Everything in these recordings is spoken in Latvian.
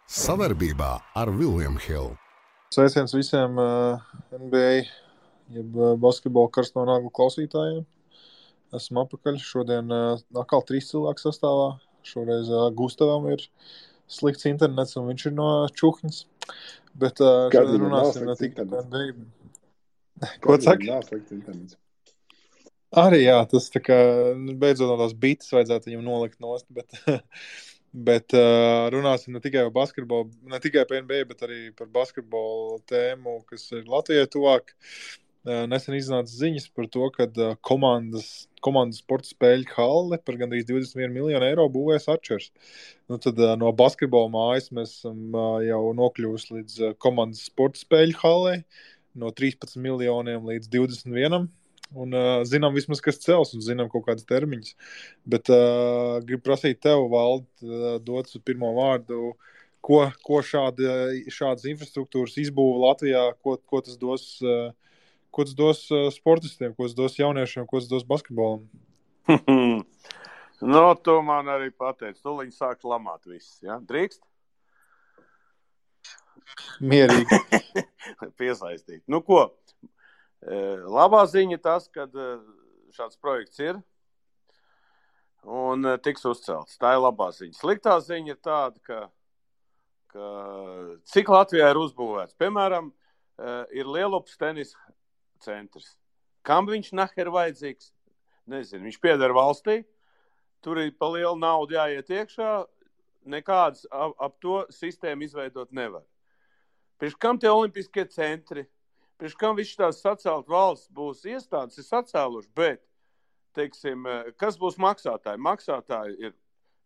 Savarbībā ar William Hill. Sveiciens visiem NBA, jeb basketbola karsto naglu klausītājiem. Esmu apakaļ. Šodien atkal 3 cilvēku sastāvā. Šoreiz Gustavam ir slikts internets un viņš ir no Čuhņas. Bet šodien runāsim ne tikai par NBA. Ko saka? Nav slikts internets. Arī jā, tas tā kā beidzot no tās bites vajadzētu viņam nolikt nost, bet runāsim ne tikai par basketbolu, ne tikai par NBA, bet arī par basketbolu tēmu, kas ir Latvijai tuvāk. Nesen iznāca ziņas par to, ka komandas sporta spēļu halli par gandrīz 21 miljonu eiro būvēs Arčers. Nu, tad no basketbola mājas mēs esam jau nokļuvusi līdz komandas sporta spēļu hallei, no 13 miljoniem līdz 21. Un zinām vismaz, kas cels, un zinām kaut kādas termiņas. Bet gribu prasīt tev, Valdi, dot pirmo vārdu, ko šādas infrastruktūras izbūva Latvijā, ko tas dos sportistiem, ko tas dos jauniešiem, ko tas dos basketbolam? No, to man arī pateic. Tūliņ sāk lamāt viss, ja? Drīkst? Mierīgi. Piesaistīt. Nu ko? Labā ziņa tas, ka šāds projekts ir un tiks uzcelts. Tā ir labā ziņa. Sliktā ziņa ir tāda, ka cik Latvijā ir uzbūvēts. Piemēram, ir Lielupas tenisa centrs. Kam viņš naher vajadzīgs? Nezinu, viņš pieder valstī. Tur ir pa lielu naudu jāiet iekšā. Nekādas ap to sistēmu izveidot nevar. Priekš kam tie olimpiskie centri? Priekš kam viss tās sacelt valsts būs iestādes, ir sacēluši, bet, teiksim, kas būs maksātāji? Maksātāji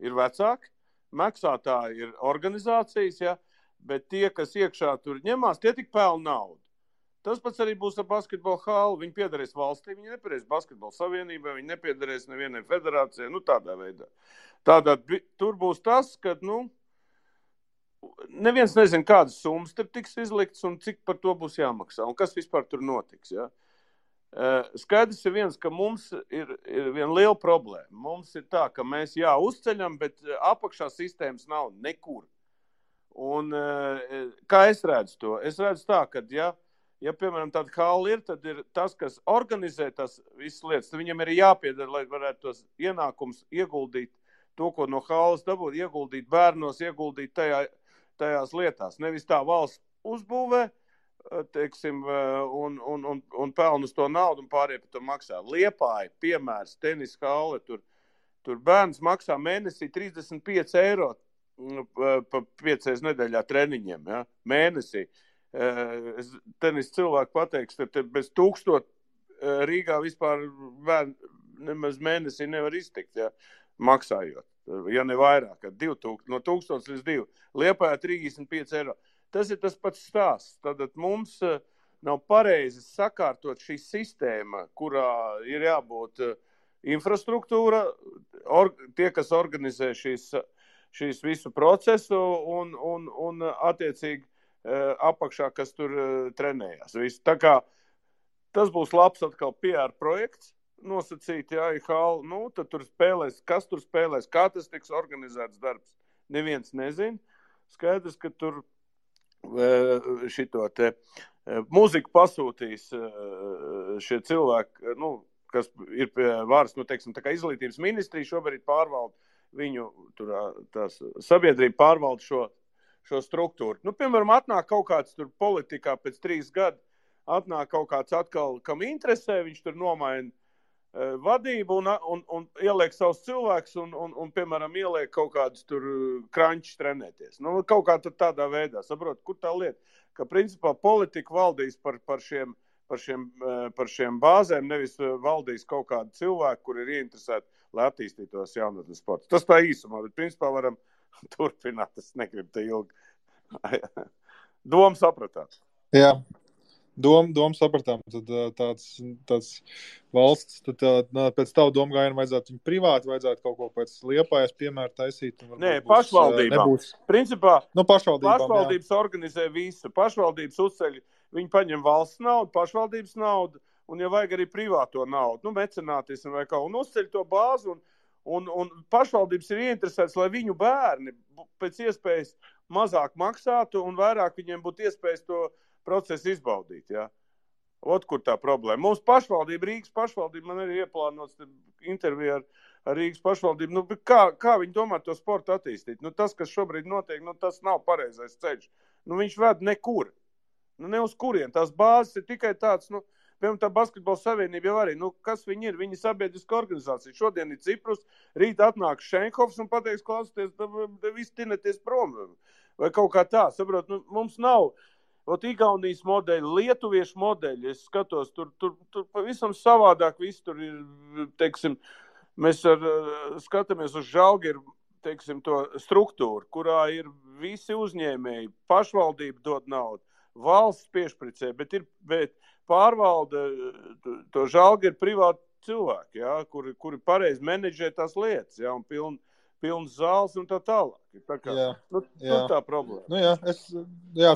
ir vecāki, maksātāji ir organizācijas, ja, bet tie, kas iekšā tur ņemās, tie tik pelna naudu. Tas pats arī būs ar basketbola halli. Viņi piederēs valstī, viņi nepiederēs basketbola savienībai, viņi nepiederēs nevienai federācijai, nu tādā veidā. Tātad tur būs tas, ka, neviens nezina, kādas summas tur tiks izliktas un cik par to būs jāmaksā un kas vispār tur notiks. Ja? Skaidrs ir viens, ka mums ir viena liela problēma. Mums ir tā, ka mēs uzceļam, bet apakšā sistēmas nav nekur. Un kā es redzu to? Es redzu tā, ka ja piemēram tāda halli ir, tad ir tas, kas organizē tas visas lietas, tad viņam ir jāpiedara, lai varētu tos ienākums ieguldīt, to, ko no halles dabūt, ieguldīt bērnos, ieguldīt tajās lietās. Nevis tā valsts uzbūvē, teiksim, un peln uz to naudu un pārējie par to maksā. Liepāja, piemērs, tenis halli, tur bērns maksā mēnesī 35 eiro pa 5 nedēļā treniņiem, ja? Mēnesī. Tenis cilvēku pateiks, te bez 1000 Rīgā vispār nemaz mēnesī nevar iztikt, ja? Maksājot. Ja ne vairāk, 2000, no 1000 līdz 2. Liepājā 35 eiro. Tas ir tas pats stāsts. Tad mums nav pareizi sakārtot šī sistēma, kurā ir jābūt infrastruktūra, tie, kas organizē šīs visu procesu un attiecīgi apakšā, kas tur trenējās. Visu. Tā kā tas būs labs atkal PR projekts, nosacīt, tad tur spēlēs, kas tur spēlēs, kā tas tiks organizēts darbs. Neviens nezin. Skaidrs, ka tur muziku pasūtīs šie cilvēki, kas ir pie varas, teiksim, tā kā izglītības ministrija šobrīd pārvalda viņu, tās sabiedrība pārvalda šo struktūru. Piemēram, atnāk kaut kāds tur politikā pēc 3 gadu, atnāk kaut kāds atkal, kam interesē, viņš tur nomaina vadību un ieliek savus cilvēkus un piemēram, ieliek kaut kādus tur krančus trenēties. Kaut kā tādā veidā, saprot, kur tā lieta, ka principā politika valdīs par šiem bāzēm, nevis valdīs kaut kādu cilvēku, kur ir ieinteresēti, lai attīstītos jaunatnes sports. Tas tā īsumā, bet principā varam turpināt, es negribu te ilgi. Domu sapratāt? Jā. Domu sapratām, tad tāds valsts, tad pēc tavu domu gājienu vajadzētu viņu privāti, vajadzētu kaut ko pēc Liepājas piemēru taisīt. Nē, pašvaldībām. Principā pašvaldības organizē visu. Pašvaldības uzceļ, viņi paņem valsts naudu, pašvaldības naudu, un ja vajag arī privāto naudu, mecenātismu vai kaut, un uzceļ to bāzi, Un pašvaldības ir ieinteresētas, lai viņu bērni pēc iespējas mazāk maksātu un vairāk viņiem būtu iespējas to procesu izbaudīt, ja? Kur tā problēma. Mums pašvaldība, Rīgas pašvaldība, man arī ieplānots interviju ar Rīgas pašvaldību. Nu, kā viņi domā to sportu attīstīt? Nu, tas, kas šobrīd notiek, nu, tas nav pareizais ceļš. Nu, viņš ved nekur. Nu, ne uz kurien. Tās bāzes ir tikai tāds, nu, piemēram, tā basketbola savienība jau arī. Nu, kas viņi ir? Viņi ir sabiedriska organizācija. Šodien ir Ciprus, rīt atnāk Šenhofs un pateiks, klausieties, visi tineties prom. Vai kaut kā tā, saprot, nu, mums nav... Igaunijas modeļi, lietuviešu modeļi, es skatos, tur pavisam savādāk viss tur ir, teiksim, mēs skatāmies uz Žalgiru, teiksim, to struktūru, kurā ir visi uzņēmēji, pašvaldība dod naudu, valsts piešpricē, bet pārvalda to Žalgiru privāti cilvēki, ja, kuri pareizi menedžē tās lietas, ja, un pilns zāles un tā tālāk. Tā kā, tā problēma. Nu,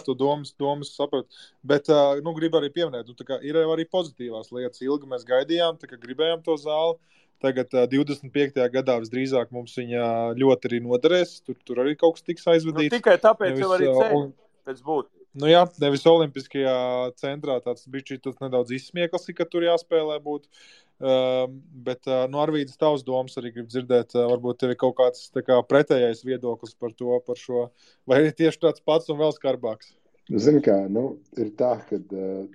tu domas sapratu. Bet, gribu arī pieminēt, tā kā ir arī pozitīvās lietas. Ilgi mēs gaidījām, tā kā gribējām to zāli. Tagad 25. gadā visdrīzāk mums viņa ļoti arī noderēs. Tur arī kaut kas tiks aizvadīts. Nu, tikai tāpēc jau arī ceļ pēc būtības. Nu jā, nevis olimpiskajā centrā tāds bišķi tas nedaudz izsmieklis, ka tur jāspēlē būt. Bet Arvīdas tavs domas arī grib dzirdēt, varbūt tev ir kaut kāds pretējais viedoklis par šo, vai ir tieši tāds pats un vēl skarbāks? Zini kā, ir tā, ka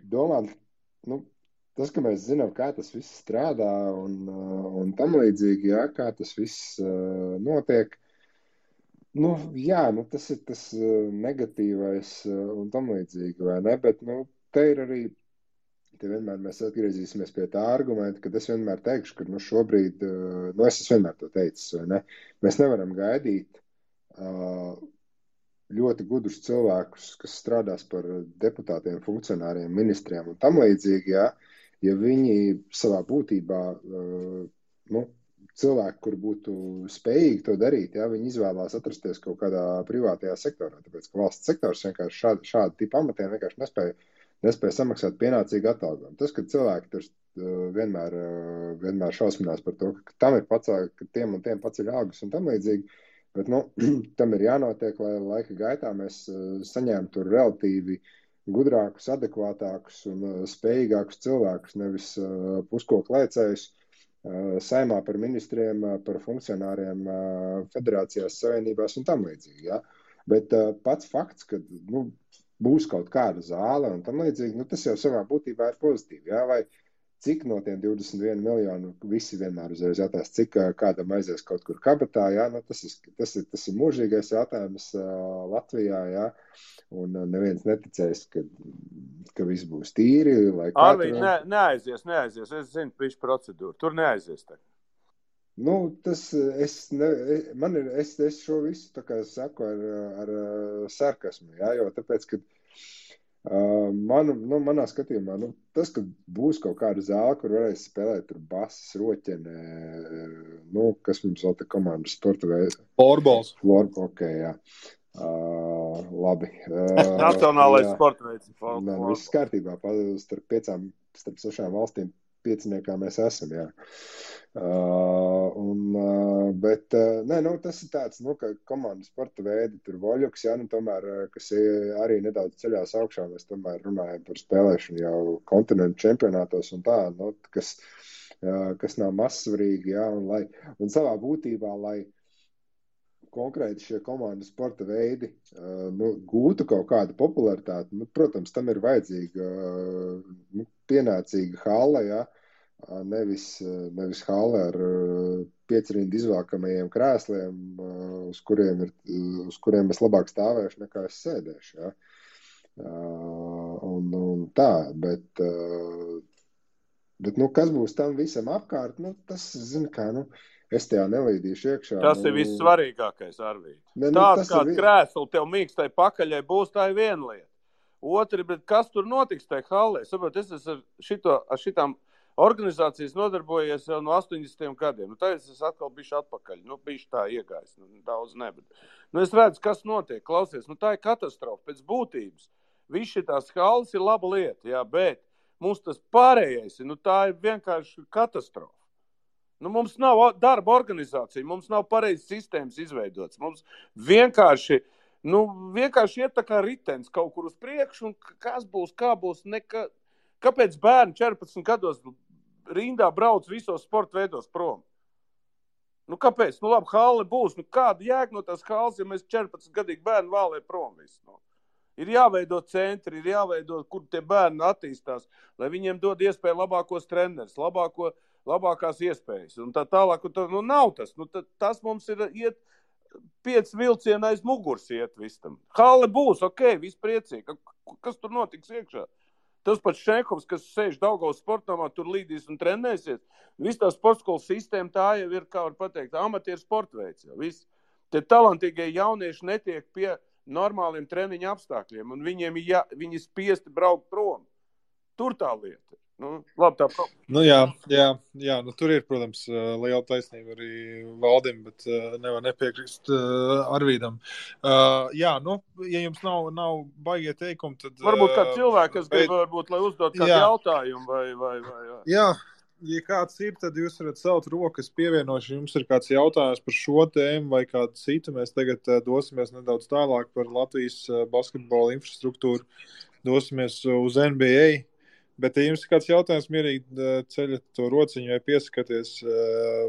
domāt, tas, ka mēs zinām, kā tas viss strādā un tam līdzīgi, jā, kā tas viss notiek, tas ir tas negatīvais un tam līdzīgi, vai ne, bet, te ir arī te vienmēr mēs atgriezīsimies pie tā argumenta, kad es vienmēr teikšu, ka šobrīd, es vienmēr to teicis, vai ne? Mēs nevaram gaidīt ļoti gudrus cilvēkus, kas strādās par deputātiem, funkcionāriem, ministriem un tam līdzīgi, ja viņi savā būtībā, cilvēki, kur būtu spējīgi to darīt, viņi izvēlās atrasties kaut kādā privātajā sektorā, tāpēc, ka valsts sektors vienkārši šādu tipu amatiem vienkārši nespēja samaksāt pienācīgu atalgojumu. Tas, ka cilvēki tur vienmēr šausminās par to, ka tam ir ka tiem un tiem paceļ algas un tam līdzīgi, bet, tam ir jānotiek, lai laika gaitā mēs saņemtu relatīvi gudrākus, adekvātākus un spējīgākus cilvēkus, nevis puskoklēcējus saimā par ministriem, par funkcionāriem, federācijās, savienībās un tam līdzīgi, ja? Bet pats fakts, ka, būs kaut kāda zāle un tam līdzīgi, tas jau savā būtībā ir pozitīvi, jā, vai cik no tiem 21 miljonu visi vienmēr uzreiz jātās, cik kādam aizies kaut kur kabatā, jā, tas ir mūžīgais jautājums Latvijā, jā, un neviens neticēs, ka viss būs tīri, lai Arvīd, neaizies, es zinu visu procedūru, tur neaizies tagad. Es šo visu tā kā saku ar sarkasmu, jā, jo tāpēc, ka manā skatījumā, tas, ka būs kaut kāda zāle, kur varēs spēlēt tur basas, roķene, kas mums vēl te komandas sporta veids. Florbols. Ok, jā. Labi. Nacionālais sporta veids. Viss kārtībā, starp 6 valstīm pieciniekā mēs esam, jā. Bet tas ir tāds, ka komandas sporta veidi tur voļuks, jā, tomēr, kas arī nedaudz ceļās augšā, mēs tomēr runājam par spēlēšanu jau kontinentu čempionātos un tā, kas nav mazsvarīgi, jā, un savā būtībā, lai konkrēti šie komandas sporta veidi gūtu kaut kādu popularitāti, protams, tam ir vajadzīga pienācīga halle, jā, nevis halle ar 5 rindu izvēlkamajiem krēsliem, uz kuriem es labāk stāvēšu nekā es sēdēšu, jā. Un tā, bet kas būs tam visam apkārt, tas, zini kā, es tajā nelīdīšu iekšā. Tas ir vissvarīgākais, Arvīd. Tāda kāda krēsla tev mīkstai pakaļai būs, tā ir viena lieta. Otri, bet kas tur notiks tajā hallē? Saprot, es esmu ar šitām organizācijas nodarbojies jau no 80. gadiem. Tagad es atkal bišķi atpakaļ. Bišķi tā iegājis. Daudz ne, bet. Es redzu, kas notiek. Klausies, tā ir katastrofa pēc būtības. Viss šitās halles ir laba lieta, jā, bet mums tas pārējais, tā ir vienkārši katastrofa. Nu, mums nav darba organizācija, mums nav pareizas sistēmas izveidotas. Mums vienkārši iet tā kā ritenis kaut kur uz priekšu, un kas būs, kā būs. Kāpēc bērni 14 gados rindā brauc visos sporta veidos prom? Nu, kāpēc? Nu, labi, halle būs. Nu, kāda jēga no tās halles, ja mēs 14 gadīgi bērni vēlē prom visu? Nu? Ir jāveido centri, ir jāveido, kur tie bērni attīstās, lai viņiem dod iespēju labākos trenerus, labākās iespējas. Un tā tālāk, nu, nav tas. Nu, tas mums ir iet 5 vilcieni aiz muguras iet visam. Halle būs, ok, viss priecīgi. Kas tur notiks iekšā? Tas pats Šenkovs, kas sēž Daugavas sportamā, tur līdīs un trenēsies. Viss tā sportskolas sistēma, tā jau ir, kā var pateikt, amatieru sportveids. Tie talantīgie jaunieši netiek pie normāliem treniņa apstākļiem, un viņi spiesti braukt prom. Tur tā lieta. Nu, labi, tā problēma. Nu, jā, nu, tur ir, protams, liela taisnība arī Valdim, bet nevar nepiekrist Arvīdam. Jā, nu, ja jums nav baigie teikumi, tad... Varbūt kā cilvēki, kas grib, varbūt, lai uzdot kādu jautājumu vai. Jā, ja kāds ir, tad jūs varat celt rokas pievienoši. Jums ir kāds jautājums par šo tēmu vai kādu citu. Mēs tagad dosimies nedaudz tālāk par Latvijas basketbola infrastruktūru. Dosimies uz NBA. Bet, ja jums ir kāds jautājums, mierīgi ceļat to rociņu vai piesakaties,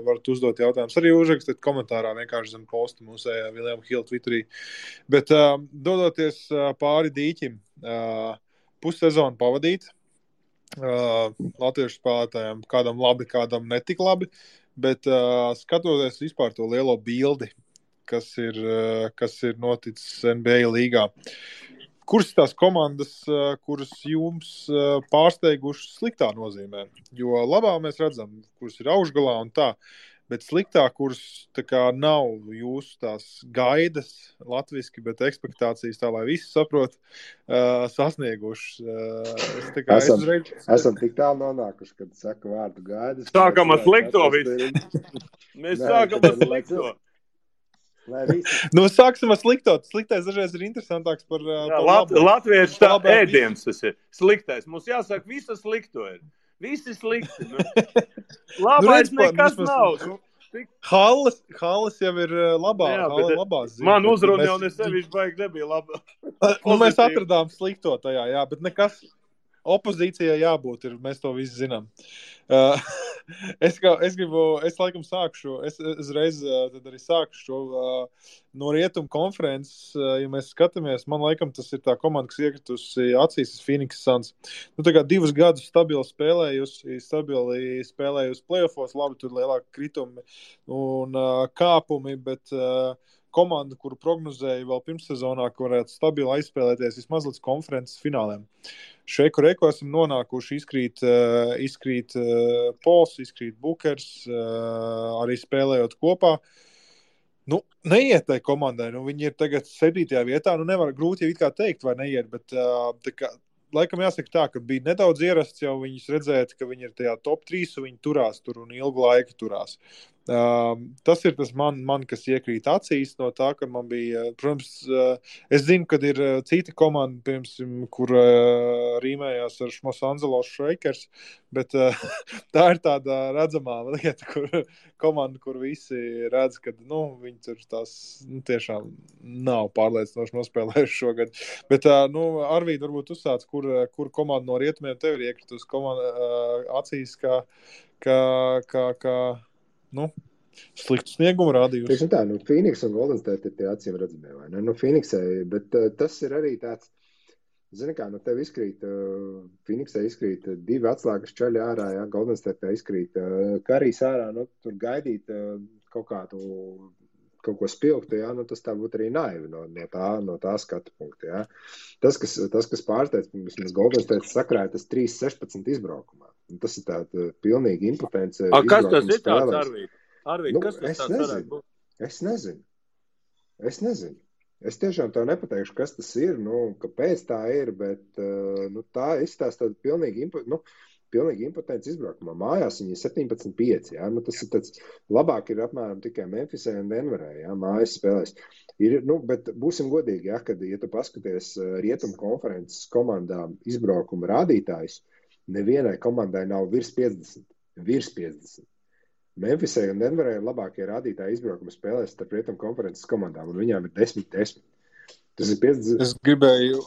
varat uzdot jautājumus. Arī uzrakstiet komentārā vienkārši zem posta mūsējā William Hill Twitterī. Bet dodoties pāri dīķim, pussezonu pavadīt latviešu spēlētājiem, kādam labi, kādam netik labi, bet skatoties vispār to lielo bildi, kas ir noticis NBA līgā. Kuras tās komandas, kuras jums pārsteigušas sliktā nozīmē? Jo labā mēs redzam, kuras ir augšgalā un tā, bet sliktā, kuras tā kā nav jūsu tās gaidas latviski, bet ekspektācijas tā, lai visi saprot, sasniegušas. Esam tik tālu nonākuši, kad saka vārdu gaidas. Sākam ar slikto visu. Mēs sākam ar slikto. Nu, sāksim ar slikto. Sliktais dažreiz ir interesantāks par labu. Latviešu tā ēdiens tas ir. Sliktais. Mums jāsaka, visu slikto ir. Visi slikti. Nu. Labais nekas nav. Halles jau ir labā. Labās ziņas. Man uzruna jau nesevišķi baigi nebija labā. Nu, mēs atradām slikto tajā, jā, bet nekas opozīcijai jābūt ir. Mēs to visi zinām. Es laikam sākšu, es reiz tad arī sākšu šo no Rietumu konferences, ja mēs skatāmies, man laikam tas ir tā komanda, kas iekritusi acīs Phoenix Suns. Nu, tā kā 2 gadus stabili spēlējusi playoffos, labi, tur lielāki kritumi un kāpumi, bet komanda, kuru prognozēja vēl pirmssezonā, ka varētu stabili aizspēlēties vismaz līdz konferences fināliem. Šeiku Reiko esam nonākuši, izkrīt Pols, izkrīt Bukers, arī spēlējot kopā. Nu, neiet tai komandai, nu, viņi ir tagad 7. vietā, nu, nevar grūti jau it kā teikt, vai neiet, bet tā kā, laikam jāsaka tā, ka bija nedaudz ierasts jau viņus redzēt, ka viņi ir tajā top 3 un viņi turās tur un ilgu laiku turās. Tas ir tas man, kas iekrīt acīs no tā, ka man bija, protams, es zinu, kad ir cita komanda, piemēram, kur rīmējās ar Los Angeles Lakers, bet tā ir tāda redzamā lieta, kur komanda, kur visi redz, ka, nu, viņi tur tās, nu, tiešām nav pārliecinoši nospēlējuši šogad. Bet, nu, Arvīd, varbūt uzsāc, kur komanda no rietumiem tev ir iekritus acīs, kā nu, sliktu sniegumu rādījusi. Tieši tā, nu, Phoenix un Golden State ir tie acīm redzamie, vai ne? Nu, Phoenixai, bet tas ir arī tāds, zini kā, nu, tev izkrīt, Phoenixai izkrīt 2 atslēgas čaļi ārā, jā, Golden State izkrīt Karijs ārā, nu, tur gaidīt kaut ko spilgtu, jā, nu, tas tā būtu arī naivi no tā skatu punkta, jā. Tas, kas pārsteidz, mēs Golden State sakrāja tas 3-16 izbraukumā. Tas ir tāda pilnīga impotence. Kas tas ir tāds, Arvīd? Nu, kas tas varētu būt? Es nezinu. Es tiešām tev nepateikšu, kas tas ir, nu, kāpēc tā ir, bet nu, tā izstāsta tāda pilnīgi impotence izbraukumā. Mājās viņi ir 17-5, jā, nu, tas ir tāds, labāk ir apmēram tikai Memphisē un Denverē, jā, mājas spēlēs. Nu, bet būsim godīgi, jā, kad, ja tu paskaties Rietumu konferences komandām izbraukuma rādītājus, nevienai komandai nav virs 50. Memphisai un Denverai ir labākie rādītāji izbraukuma spēlēs starp rietumu konferences komandām, un viņām ir 10-10. Tas ir 50. Es gribēju,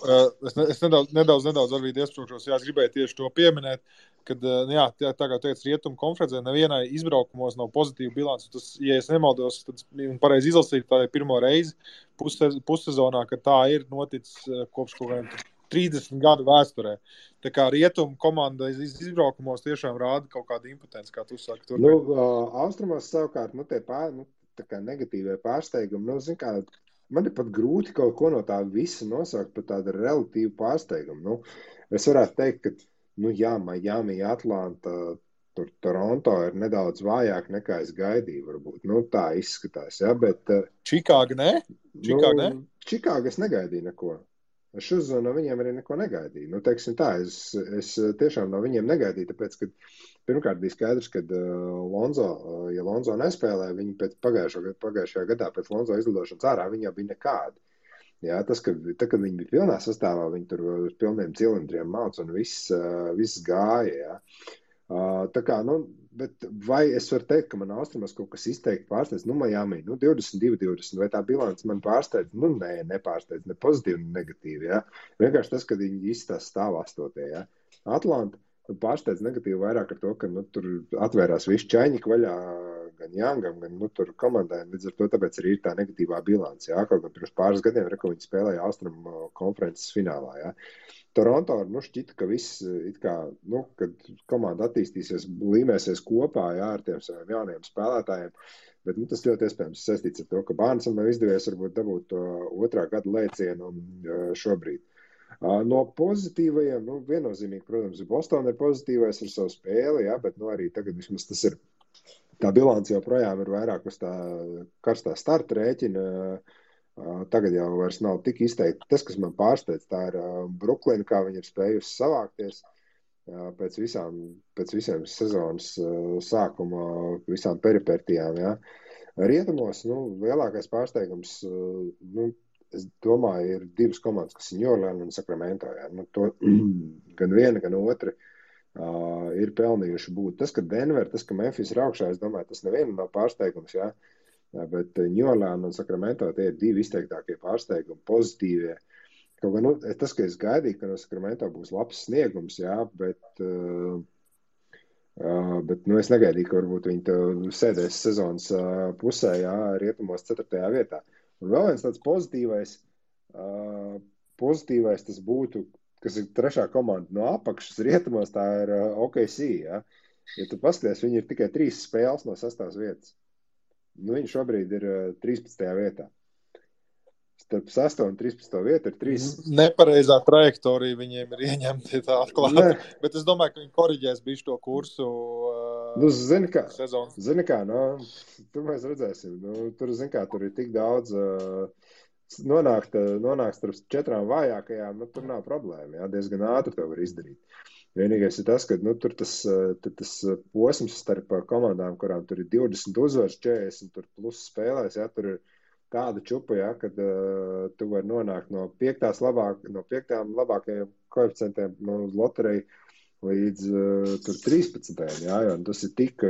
es nedaudz varbūt iesprūkšos, es gribēju tieši to pieminēt, kad, jā, tā kā teicu, rietumu konferencē nevienai izbraukumos nav pozitīva bilance. Tas, ja es nemaldos, tad pareizi izlasīju, tā ir pirmo reizi pussezonā, kad tā ir noticis kopš kaut kādiem 30 gadu vēsturē. Tā kā rietumu komanda izbraukumos tiešām rāda kaut kādu impotenci, kā tu saki. Austrumos savukārt, tie tā kā negatīvie pārsteigumi, zin kā, man ir pat grūti kaut ko no tā visa nosaukt par tādu relatīvu pārsteigumu. Es varētu teikt, ka, jā, Miami, Atlanta, tur Toronto ir nedaudz vājāk nekā es gaidīju, varbūt. Tā izskatās, jā, bet... Čikāga, ne? Čikāga es negaidīju neko. Es uzzinu, no viņiem arī neko negaidīju. Teiksim tā, es tiešām no viņiem negaidīju, tāpēc, ka pirmkārt bija skaidrs, ka ja Lonzo nespēlē, viņi pēc pagājušajā gadā pēc Lonzo izlidošanas ārā, viņi jau bija nekādi. Jā, kad viņi bija pilnā sastāvā, viņi tur uz pilniem cilindriem māc un viss gāja, jā. Tā kā, bet vai es varu teikt, ka man austrumos kaut kas izteikti pārsteidz? Miami, 22-20, vai tā bilance man pārsteidz? Nē, nepārsteidz, ne pozitīvi, ne negatīvi, jā. Vienkārši tas, kad viņi izstās stāv 8. jā. Atlanta pārsteidz negatīvi vairāk ar to, ka, tur atvērās visu čaņiku vaļā gan Youngam, gan, tur komandai, līdz ar to tāpēc arī ir tā negatīvā bilance, jā. Kaut gan pirms pāris gadiem, ko viņi spēlēja Austrumu konferences finālā, jā. Toronto šķita, ka viss, kad komanda attīstīsies, līmēsies kopā, jā, ar tiem saviem jauniem spēlētājiem, bet tas ļoti iespējams saistīts ar to, ka Barnesam nav izdevies varbūt dabūt to otrā gada lēcienu šobrīd. No pozitīvajiem, viennozīmīgi, protams, Boston ir pozitīvais ar savu spēli, jā, bet arī tagad vismaz tas ir, tā bilance joprojām ir vairāk uz tā karstā starta rēķina. Tagad jau vairs nav tik izteikti. Tas, kas man pārsteidz, tā ir Bruklina, kā viņi ir spējusi savākties pēc visiem sezonas sākuma, visām peripertijām. Jā. Rietumos, lielākais pārsteigums, es domāju, ir divas komandas, kas ir New Orleans un Sacramento. Jā. To gan viena, gan otra ir pelnījuši būt. Tas, ka Denver, tas, ka Memphis ir augšā, es domāju, tas nevienam nav pārsteigums, jā. Jā, bet New Orleans un Sacramento tie ir divi izteiktākie pārsteigumi, pozitīvie. Kaut gan, tas, ka es gaidīju, ka no Sacramento būs labs sniegums, jā, bet es negaidīju, ka varbūt viņi sēdēs sezonas pusē, jā, rietumos 4. vietā. Un vēl viens tāds pozitīvais tas būtu, kas ir trešā komanda no apakšas rietumos, tā ir OKC, jā. Ja tu paskaties, viņi ir tikai 3 spēles no 6. vietas. Viņi šobrīd ir 13. vietā. Starp 6. un 13. vietu ir 3. Nepareizā trajektorija viņiem ir ieņemti tā atklāti. Bet es domāju, ka viņi koriģēs bišķi to kursu sezonu. Zini kā, tur mēs redzēsim. Tur ir tik daudz nonākt starp 4 vājākajām, tur nav problēma. Jā, diezgan ātri to var izdarīt. Vienīgais ir tas, ka tur tas posms starp komandām, kurām tur ir 20 uzvaras, 40 tur plus spēlēs, jā, tur ir tāda čupa, jā, kad tu vari nonākt no 5. labākajiem koeficientiem no lotereja līdz tur 13. Jā, jo tas ir tik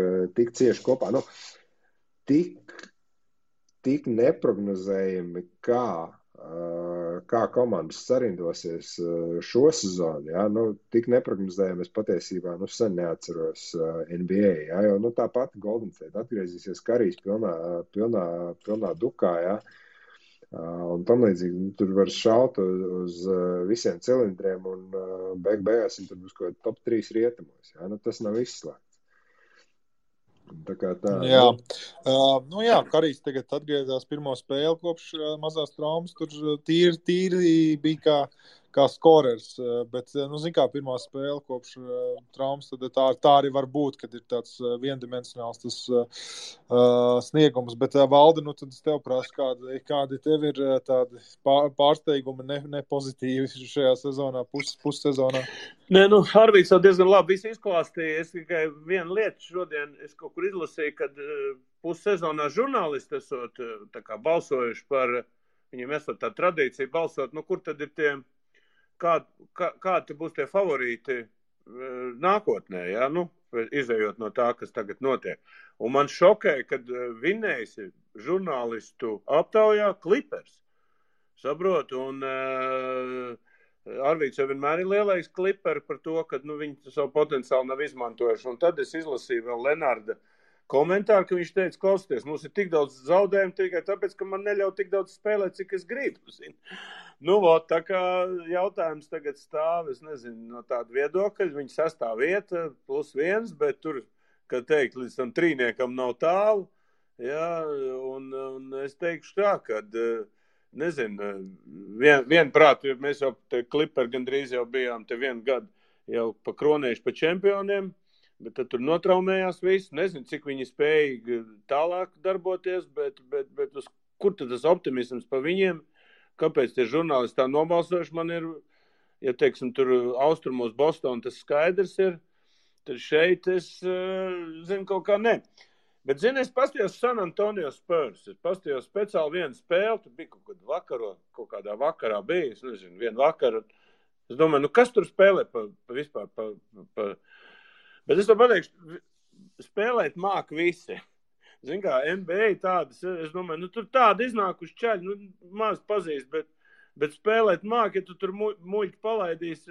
cieši kopā. Tik neprognozējami, kā komandas sarindosies šo sezonu, jā, tik neprognozējami es patiesībā, sen neatceros NBA, jā, jo, tāpat Golden State atgriezīsies Karijs pilnā dukā, jā, un tam līdzīgi, tur var šaut uz visiem cilindriem, un beigās tur būs kaut top 3 rietumos, jā, tas nav izslēgts. Tā kā tā. Jā, jā, Karijs tagad atgriezās pirmo spēli kopš mazās traumas, tur tīri bija kā skorers, bet, zin kā, pirmā spēle kopš traumas, tad tā arī var būt, kad ir tāds viendimensionāls tas sniegums, bet Valdi, tad es tev prasu, kādi tev ir tādi pārsteigumi nepozitīvi šajā sezonā, pussezonā? Nē, Harvijs jau diezgan labi visu izklāstīja. Es tikai vienu lietu šodien, es kaut kur izlasīju, kad pussezonā žurnālisti esot tā kā balsojuši par, viņiem esot tā tradīcija balsot, kur tad ir tie, kādi būs tie favorīti nākotnē, jā, izējot no tā, kas tagad notiek. Un man šokēja, kad vinnējis žurnālistu aptaujā Clippers. Saprotu, un Arvīts jau vienmēr ir lielais Clippers par to, ka viņi savu potenciālu nav izmantojuši. Un tad es izlasīju vēl Lenarda komentāru, ka viņš teica, klausieties, mums ir tik daudz zaudējumu tikai tāpēc, ka man neļauj tik daudz spēlēt, cik es gribu. Tā kā jautājums tagad stāv, es nezinu, no tāda viedokļa, viņa 6. vieta +1, bet tur, kā teikt, līdz tam trīniekam nav tālu. Jā, un es teikšu tā, kad, nezinu, vienprāt, mēs jau te Clipper gandrīz jau bijām te 1 gadu jau pakronējuši pa čempioniem, bet tad tur notraumējās viss. Nezinu, cik viņi spēja tālāk darboties, bet kur tad tas optimisms pa viņiem? Kāpēc tie žurnālisti tā nobalsojuši? Man ir, ja teiksim, tur austrumos Boston tas skaidrs ir, tad šeit es zinu kaut kā ne. Bet, zini, es pastījos San Antonio Spurs. Es pastījos speciāli vienu spēli, tur bija kaut kādā vakarā bija, es nezinu, vienu vakaru. Es domāju, kas tur spēlē vispār? Bet es to pateikšu, spēlēt māk visi. Zin kā, NBA tādas, es domāju, tur tādi iznākuši čaļi, maz pazīst, bet spēlēt māk, ja tu tur muļķi palaidīs,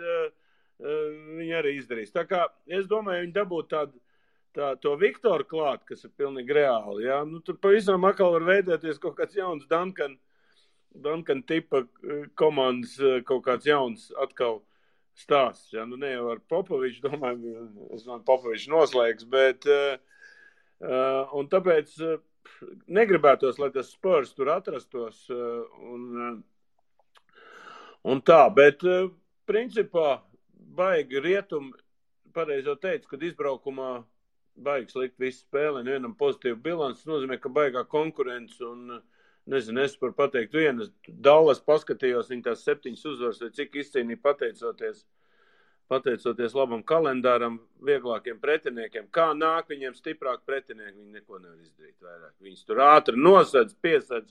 viņi arī izdarīs. Tā kā, es domāju, viņi dabūtu to Viktoru klāt, kas ir pilnīgi reāli, jā. Tur pavisam atkal var veidēties kaut kāds jauns Duncan tipa komandas, kaut kāds jauns atkal stāsts, jā. Ne jau ar Popoviču, domāju, Popovičs noslēgs, bet, un tāpēc negribētos, lai tas Spurs tur atrastos, un tā, bet, principā, baigi rietumi, pareizi jau teicu, kad izbraukumā baigi slikt visu spēli, vienam pozitīvu bilanci, nozīmē, ka baigā konkurence, un, nezinu, es par pateikt vienu, Dallas paskatījos, viņi tās 7 uzvaras, vai cik izcīnīja pateicoties labam kalendāram, vieglākiem pretiniekiem. Kā nāk viņiem stiprāk pretinieki, viņi neko nevar izdarīt vairāk. Viņus tur ātri nosedz, piesedz,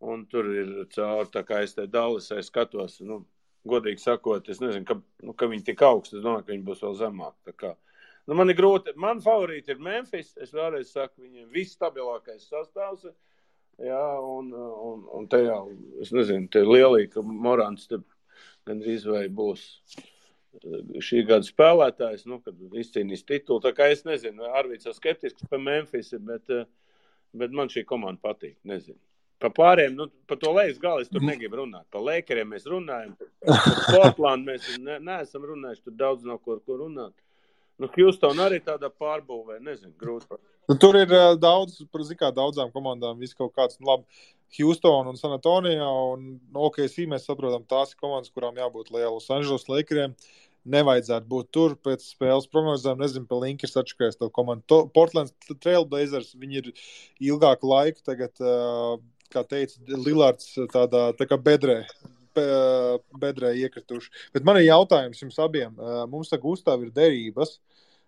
un tur ir cauri, tā kā es te Dallasai skatos, godīgi sakot, es nezinu, ka viņi tik augsti, es domāju, ka viņi būs vēl zemāk. Tā kā, man ir grūti, man favorīti ir Memphis, es vēlreiz saku, viņiem viss stabilākais sastāvs, jā, un te jau, es nezinu, te lielī, ka Morants te gandrīz vai būs šī gada spēlētājs, kad izcīnīs titulu. Tā kā es nezinu, Arvīts jau skeptisks par Memphis, bet man šī komanda patīk, nezinu. Pa pārējiem, pa to lejas galu es tur negribu runāt. Pa Lakeriem mēs runājam, pa Portland mēs neesam runājuši, tur daudz nav ko runāt. Houston arī tādā pārbūvē, nezinu, grūti. Tur ir daudz, daudzām komandām viss kaut kāds, labi, Houston un San Antonio, un OKC mēs saprotam, tās ir komandas, kurām jābūt liela. Los Angeles Lakeriem nevajadzētu būt tur pēc spēles prognozēm, nezinu, pa Linkers atšakēs to komandu. Portland Trail Blazers, viņi ir ilgāku laiku tagad, kā teica, Lillards tā kā bedrē iekrituši. Bet man ir jautājums jums abiem. Mums tā Gustav ir derības.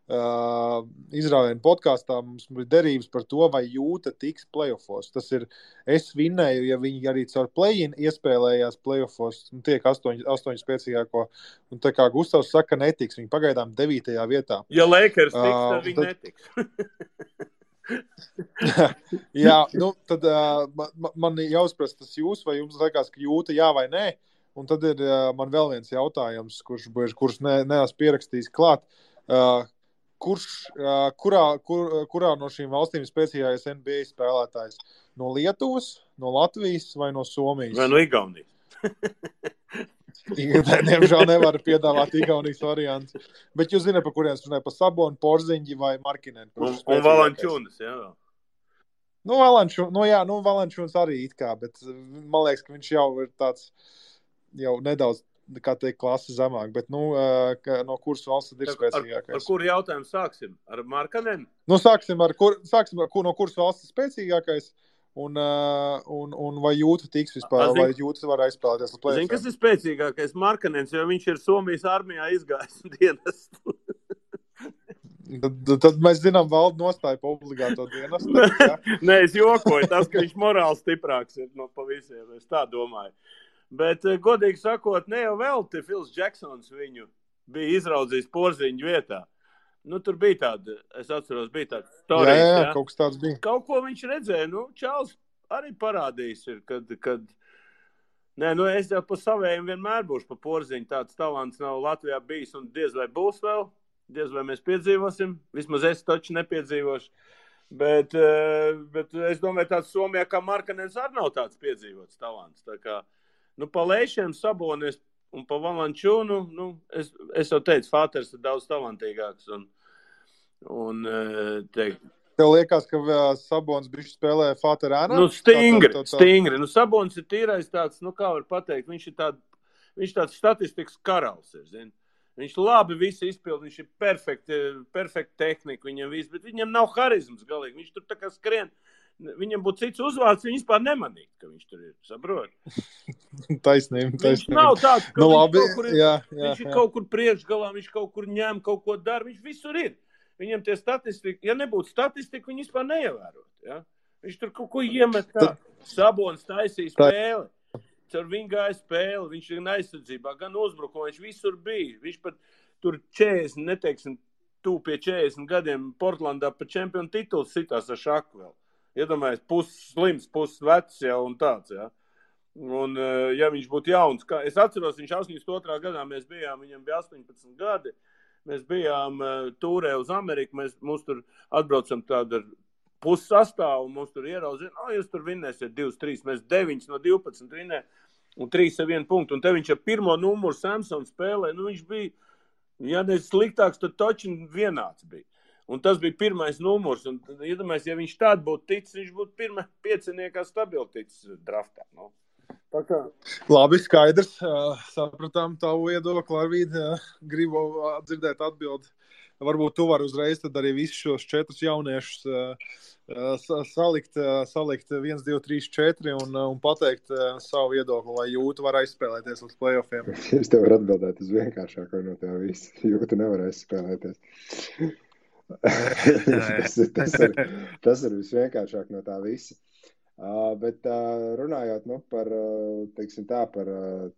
Izrāvienu podkāstā mums ir derības par to, vai Jūta tiks playoffos. Tas ir, es vinnēju, ja viņi arī caur play-in iespēlējās playoffos, tiek 8 spēcīgāko. Un tā kā Gustavs saka, netiks. Viņi pagaidām 9. vietā. Ja Lakers tiks, tad viņi netiks. Jā, tad man jāuzprast tas jūs, vai jums liekas, ka Jūta jā vai nē. Un tad ir man vēl viens jautājums, kurš neesmu pierakstījis klāt. Kurā no šīm valstīm spēcīgākais NBA spēlētājs? No Lietuvas, no Latvijas vai no Somijas? Vai no Igaunijas? Diemžēl nevar piedāvāt Igaunijas variantu. Bet jūs zināt, pa kuriem es runāju, pa Sabonu, Porziņģi vai Markinen? Un Valančūnas, jā. Valančūnas arī it kā, bet man liekas, ka viņš jau ir tāds, jau nedaudz, kā teikt, klasi zemāk, bet, no kuras valsts ir spēcīgākais? Ar kuru jautājumu sāksim? Ar Markinen? Sāksim ar no kuras valsts ir spēcīgākais, un vai Jūta tiks vispār, vai Jūta var aizspēlēties uz play-offiem? Zini, kas ir spēcīgākais? Markinens, jo viņš ir Somijas armijā izgājis dienestu. Tad mēs zinām valdu nostāju pa obligāto dienestu. Nē, es jokoju, tas, ka viņš morāli stiprāks ir pa visiem, es tā domāju. Bet, godīgi sakot, ne jau vēl te Phils Jacksons viņu bija izraudzījis Porziņu vietā. Nu, tur bija tāda, es atceros, bija tāda storijas, jā, kaut kas tāds bija. Kaut ko viņš redzēja, Čāls arī parādījis ir, kad nē, es jau pa savējiem vienmēr būšu pa Porziņu, tāds talants nav Latvijā bijis un diez vai būs vēl, diez vai mēs piedzīvosim, vismaz es taču nepiedzīvošu, bet es domāju, tāds Somijā kā Markanens arī nav tāds piedzīvots talants, tā kā, pa Leišiem Sabonis un pa Valančūnu, es jau teicu, Fāters ir daudz talantīgāks un teikt, Tev liekas, ka Sabons bišķi spēlē Fāterānā? Stingri. Sabons ir tīrais tāds, kā var pateikt, viņš tāds statistikas karalis ir, zini. Viņš labi visu izpild, viņš ir perfekta tehnika viņam viss, bet viņam nav harizmas galīgi. Viņš tur tā kā skrien, viņam būtu cits uzvārds, viņš vispār nemanīt, ka viņš tur ir, saprot? Taisnība. Viņš nav tāds, ka viņš ir kaut kur priekšgalā, viņš kaut kur ņem, kaut ko dara, viņš visur ir. Viņam tie statistika, ja nebūtu statistika, viņi vispār neievērot. Ja? Viņš tur kaut ko iemet tā. Sabons taisīja spēli. Caur viņu gāja spēli. Viņš ir aizsardzībā, gan uzbrukumā. Viņš visur bija. Viņš pat tur 40, neteiksim, pie 40 gadiem Portlandā pa čempionu titulu sitās ar šaku vēl. Iedomājies, pusslims, pusvecs jau un tāds. Ja? Un, ja viņš būtu jauns, es atceros, viņš 82. gadā mēs bijām, viņam bija 18 gadi. Mēs bijām tūrē uz Ameriku, mums tur atbraucam tādu ar pussastāvu, un mums tur ieraudzina, jūs tur vinnēsiet 2-3, mēs 9 no 12 vinnē, un 3 ar 1 punktu, un te viņš ar pirmo numuru Samson spēlē, viņš bija, ja ne sliktāks, tad toči vienāds bija. Un tas bija pirmais numurs, un iedomājies, ja viņš tādu būtu ticis, viņš būtu pirmā pieciniekā stabili ticis draftā, Labi, skaidrs. Sapratām tavu viedokli, Arvīd. Gribu dzirdēt atbildi. Varbūt tu vari uzreiz tad arī visus šos 4 jauniešus salikt 1, 2, 3, 4 un pateikt savu viedokli, vai Jūta var aizspēlēties līdz playoffiem. Es tev varu atbildēt uz vienkāršāko no tev visu. Jūta nevar aizspēlēties. tas ir visvienkāršāk no tā visa. Bet runājot par, teiksim tā, par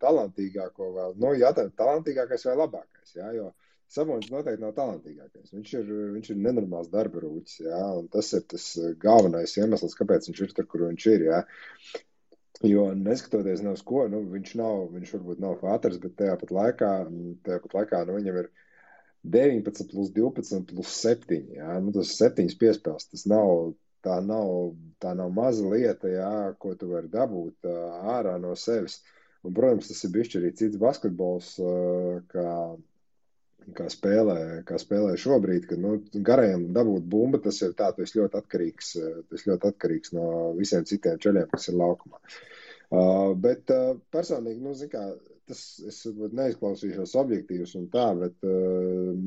talantīgāko vēl, jātājot talantīgākais vai labākais, jā, jo Sabons noteikti nav talantīgākais. Viņš ir nenormāls darba rūķis, jā, un tas ir tas galvenais iemesls, kāpēc viņš ir tur, kur viņš ir, jā. Jo neskatoties nav uz ko, viņš varbūt nav Fāters, bet tajā pat laikā viņam ir 19 plus 12 plus 7, jā, tas 7 piespēles, tas nav. Tā nav maza lieta, jā, ko tu vari dabūt ārā no sevis. Un, protams, tas ir bišķi arī cits basketbols, kā spēlē šobrīd, kad garajam dabūt bumba, tas ir tā, tu esi ļoti atkarīgs no visiem citiem čeļiem, kas ir laukumā. Bet personīgi, es neizklausīšos objektīvs un tā, bet,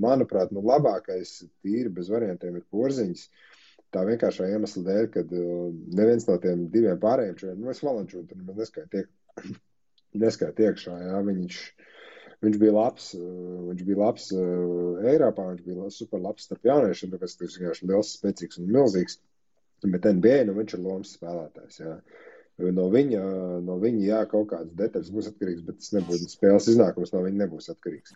manuprāt, labākais tīri bez variantiem ir Porziņš. Tā vienkāršā iemesla dēļ, kad neviens no tiem 2 pārējiem čeļiem, es Valančūnu tur neskait iekšā, jā, viņš bija labs Eiropā, viņš bija super labs starp jauniešiem, tāpēc tas vienkārši liels, spēcīgs un milzīgs, bet NBA, viņš ir lomas spēlētājs, jā. No viņa, jā, kaut kādas detaļas būs atkarīgs, bet tas nebūtu spēles iznākums, no viņa nebūs atkarīgs.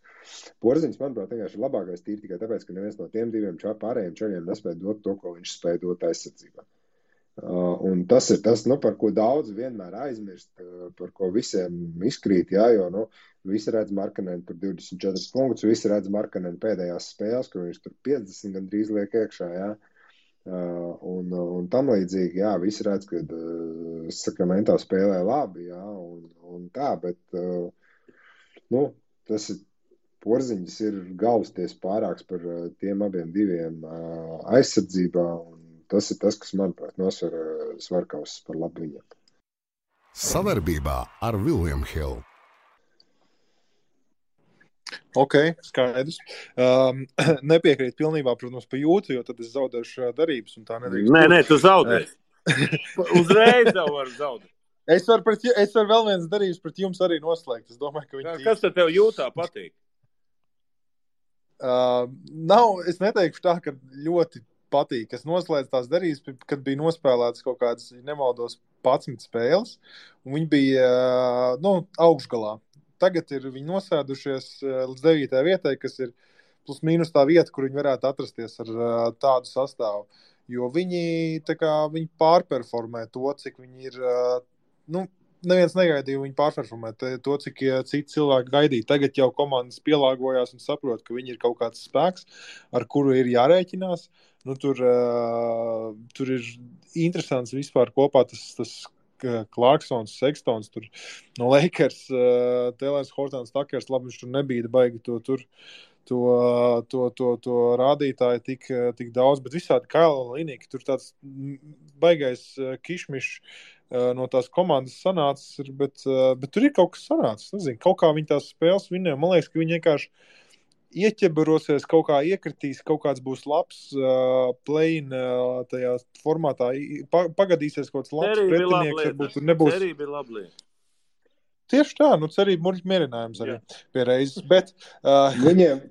Porziņš, manuprāt, vienkārši ir labākais tīri tikai tāpēc, ka neviens no tiem 2 pārējiem čeļiem nespēja dot to, ko viņš spēja dot aizsardzībā. Un tas ir tas, par ko daudz vienmēr aizmirst, par ko visiem izkrīt, jā, jo, visi redz Markanenu tur 24 punktus, visi redz Markanenu pēdējās spēles, kur viņš tur 50 gandrīz liek iekšā, jā. Un tam līdzīgi, jā, visi redz, ka Sakramento spēlē labi, jā, un tā, bet, tas ir Porziņš ir galvasties pārāks par tiem abiem 2 aizsardzībā, un tas ir tas, kas, manuprāt, nosver svarkaus par labu viņam. Savarbībā ar William Hill. Ok, skaidrs. Nepiekrīt pilnībā, protams, pa Jūtu, jo tad es zaudēšu darības un tā nedrīkst. Nē, tu zaudēsi. Uzreiz jau var zaudēt. Es varu vēl viens darības pret jums arī noslēgt. Es domāju, ka viņi... Kas tad tev Jūtā patīk? Es neteikšu tā, ka ļoti patīk. Es noslēdzu tās darības, kad bija nospēlētas kaut kādas, nemaldos, 11 spēles, un viņi bija, augšgalā. Tagad ir viņi nosēdušies līdz 9. vietai, kas ir plus mīnus tā vieta, kur viņi varētu atrasties ar tādu sastāvu. Jo viņi pārperformē to, cik viņi ir, neviens negaidīja viņi pārperformē to, cik citi cilvēki gaidīja. Tagad jau komandas pielāgojās un saprot, ka viņi ir kaut kāds spēks, ar kuru ir jārēķinās. Tur ir interesants vispār kopā tas Clarksons, Sextons, tur no Lakers, Taylors, Hortons, Takers, labi, viņš tur nebija baigi to rādītāju tik daudz, bet visādi Kaila Linīgi, tur tāds baigais kišmišs no tās komandas sanācis, bet tur ir kaut kas sanācis, nezinu, kaut kā viņi tās spēles vinnē, man liekas, ka viņi vienkārši ieķebarosies, kaut kā iekritīs, kaut kāds būs labs play-in tajā formātā, pagadīsies kaut kāds labs pretinieks, varbūt tur nebūs. Cerība ir laba lieta. Tieši tā, cerība mierinājums arī pie reizes, bet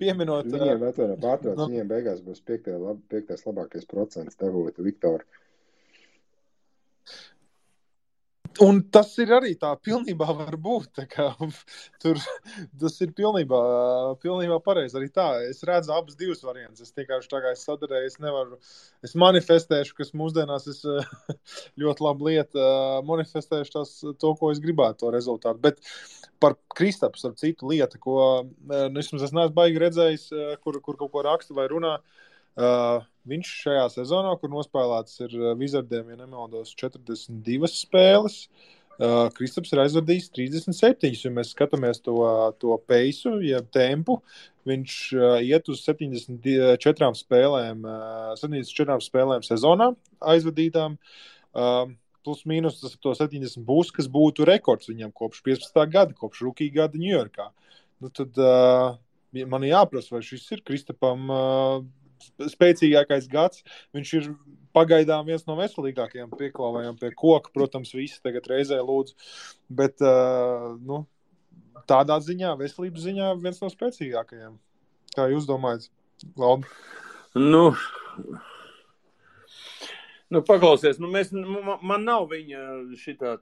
pieminot... Viņiem beigās būs piektais labākais procents devot Viktoru. Un tas ir arī tā pilnībā var būt, tā kā tas ir pilnībā pareizi arī tā. Es redzu abas divas variantus. Es vienkārši tā kā es sadarēju, es manifestēšu, kas mūsdienās es ļoti labu lietu, manifestēšu to, ko es gribētu, to rezultātu. Bet par Kristapu, ar citu lietu, ko es neesmu baigi redzējis, kur kaut ko raksta vai runā, viņš šajā sezonā, kur nospēlēts ir Wizardiem, ja nemaldos, 42 spēles, Kristaps ir aizvadījis 37, ja mēs skatāmies to peisu, ja tempu, viņš iet uz 74 spēlēm sezonā aizvadītām, plus mīnus tas to 70 būs, kas būtu rekords viņam kopš 15. gada, kopš rookie gada Ņujorkā. Tad man jāprasa, vai šis ir Kristapam spēcīgākais gads. Viņš ir pagaidām viens no veselīgākajiem pieklāvējiem pie koka. Protams, visi tagad reizē lūdzu. Bet tādā ziņā, veselības ziņā viens no spēcīgākajiem. Kā jūs domājat, Valdi? Paklausies, man nav viņa šitā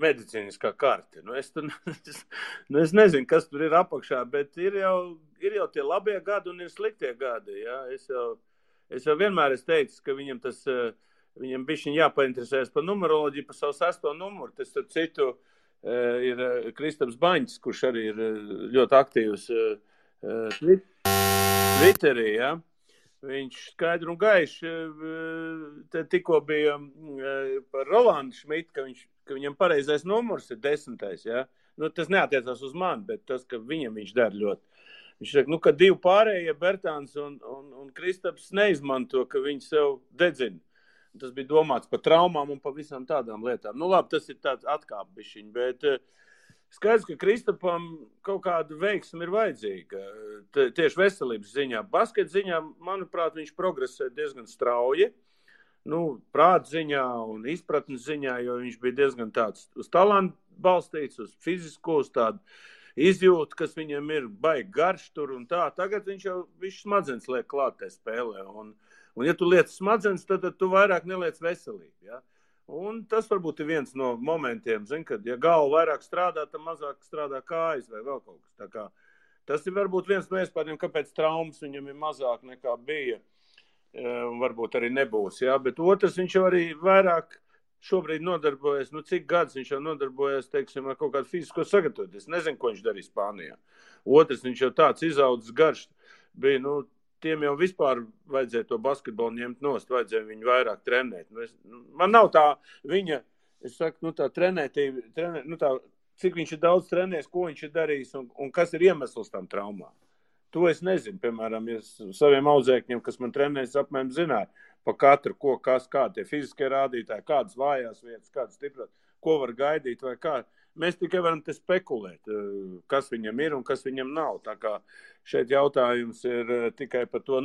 medicīniskā karte. Es nezinu, kas tur ir apakšā, bet ir jau tie labie gadi un ir sliktie gadi. Ja? Es jau vienmēr esmu teicis, ka viņam bišķiņ jāpainteresēs par numeroloģiju, par savu 6. numuru. Tas ar citu ir Kristaps Baņķis, kurš arī ir ļoti aktīvs Twitterī, ja? Viņš skaidri un gaiši tikko bija par Rolandu Šmitu, ka viņam pareizais numurs ir 10. Ja? Tas neatiecās uz mani, bet tas, ka viņam viņš dara ļoti. Viņš saka, ka 2 pārējie Bertāns un Kristaps neizmanto, ka viņi sev dedzina. Tas bija domāts par traumām un par visām tādām lietām. Labi, tas ir tāds atkāpbišķiņ, bet skaidrs, ka Kristapam kaut kāda veiksme ir vajadzīga. Tieši veselības ziņā. Basket ziņā, manuprāt, viņš progresē diezgan strauji. Prāta ziņā un izpratnes ziņā, jo viņš bija diezgan tāds uz talantu balstīts, uz fizisko, uz tādu izjūtu, kas viņam ir baigi garš tur un tā. Tagad viņš jau smadzenes liek klāt tajā spēlē. Un ja tu liec smadzenes, tad tu vairāk neliec veselību. Ja? Un tas varbūt ir viens no momentiem, kad ja galva vairāk strādā, tad mazāk strādā kājas vai vēl kaut kas. Tā kā, tas ir varbūt viens no iespējām, kāpēc traumas viņam ir mazāk nekā bija. Varbūt arī nebūs. Ja? Bet otrs, viņš jau arī vairāk šobrīd nodarbojas, cik gads viņš jau nodarbojas, teiksim, ar kaut kādu fizisko sagatavotu. Es nezinu, ko viņš darīja Spānijā. Otrs, viņš jau tāds izaudzis garš bija, tiem jau vispār vajadzēja to basketbolu ņemt nost, vajadzēja viņu vairāk trenēt. Man nav tā viņa, es saku, tā trenētība, cik viņš ir daudz trenējis, ko viņš ir darījis un kas ir iemesls tam traumām. To es nezinu, piemēram, ja saviem audzēkņiem, kas man trenējas, apmēram zināja pa katru, kādi tie fiziskie rādītāji, kādas vājās vietas, kādas stipras, ko var gaidīt vai kā. Mēs tikai varam te spekulēt, kas viņam ir un kas viņam nav. Tā kā šeit jautājums ir tikai par to.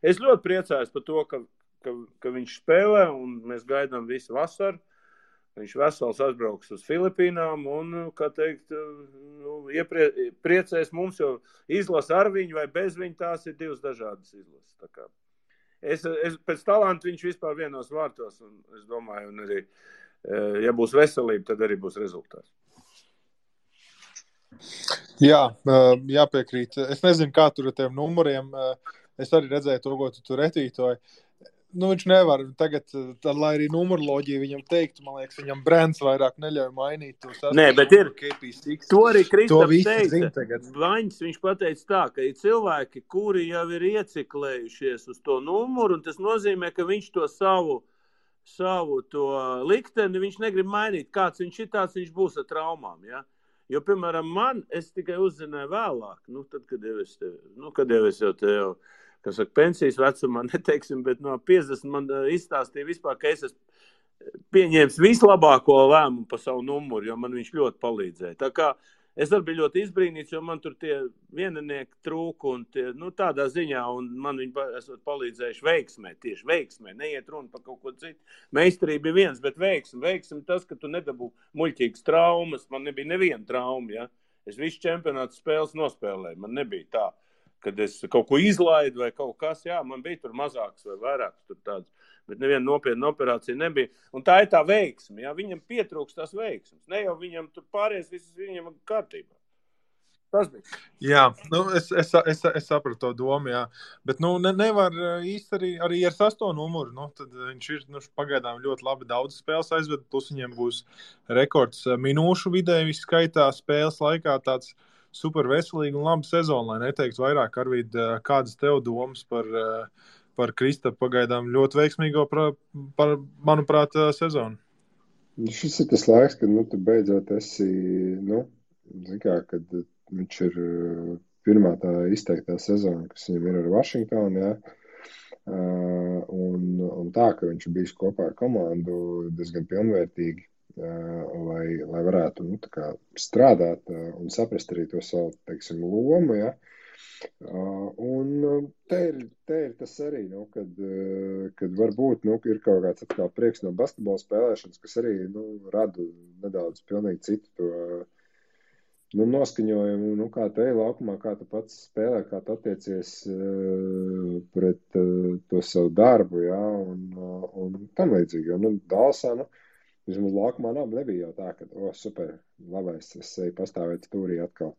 Es ļoti priecājos par to, ka viņš spēlē un mēs gaidām visu vasaru. Viņš vesels atbrauks uz Filipīnām un, kā teikt, priecēs mums, jo izlasa ar viņu vai bez viņu, tās ir divas dažādas izlases. Tā kā es pēc talantu viņš vispār vienos vārtos un es domāju, un arī, ja būs veselība, tad arī būs rezultāts. Jā, jāpiekrīt. Es nezinu, kā tur ar tiem numuriem. Es arī redzēju to, ko tu tur retītoji. Nu, viņš nevar tagad, lai arī numuroloģija viņam teiktu, man liekas, viņam brands vairāk neļauj mainīt tos Nē, bet ir. KP6. To arī Kristaps visi teica. zina tagad. Vaņs, viņš pateica tā, ka ir cilvēki, kuri jau ir ieciklējušies uz to numuru, un tas nozīmē, ka viņš to savu to likteni, viņš negrib mainīt. Kāds viņš ir, tāds viņš būs ar traumām, ja? Jo, piemēram, es tikai uzzināju vēlāk, tad, kad jau es jau te jau, kas saka, pensijas vecumā, neteiksim, bet no 50 man izstāstīja vispār, ka es esmu pieņēmis vislabāko lēmumu pa savu numuru, jo man viņš ļoti palīdzēja. Tā kā es arī biju ļoti izbrīnīts, jo man tur tie vieninieki trūka un tie, tādā ziņā, un man viņi esot palīdzējuši veiksmē, tieši veiksmē, neiet runa par kaut ko citu. Meistarība ir viens, bet veiksmi tas, ka tu nedabū muļķīgas traumas, man nebija neviena trauma, ja. Es visu čempionātu spēles nospēlēju, man nebija tā, kad es kaut ko izlaidu vai kaut kas, jā, man bija tur mazāks vai vairāks tur tāds, bet neviena nopietna operācija nebija. Un tā ir tā veiksme, jā, viņam pietrūks tās veiksmes. Ne jau viņam tur pāries, visas viņam kārtībā. Tas bija. Jā, es sapratu to domu, jā. Bet, nevar īsti arī ar 8 numuru, tad viņš ir, pagaidām ļoti labi daudz spēles aizved, plus viņiem būs rekords minūšu vidēji skaitā spēles laikā tāds super veselīgi un labi sezonu, lai neteiktu vairāk, Arvīd, kādas tev domas par Kristapu pagaidām ļoti veiksmīgo, manuprāt, sezonu? Šis ir tas laiks, kad tu beidzot esi, kad viņš ir pirmā tā izteiktā sezona, kas viņam ir ar Washingtonu, jā. Un tā, ka viņš ir bijis kopā ar komandu diezgan pilnvērtīgi, lai varētu strādāt un saprast arī to savu, teiksim, lomu, ja? Un te ir tas arī, kad varbūt ir kaut kāds atkal prieks no basketbola spēlēšanas, kas arī rada nedaudz pilnīgi citu to noskaņojumu, kā tu ej laukumā, kā tu pats spēlē, kā tu attiecies pret to savu darbu, ja? Un tam līdzīgi, jo Dalsā, vismaz laukumā nebija jau tā, ka, super, labais, es eju pastāvēt stūrī atkal.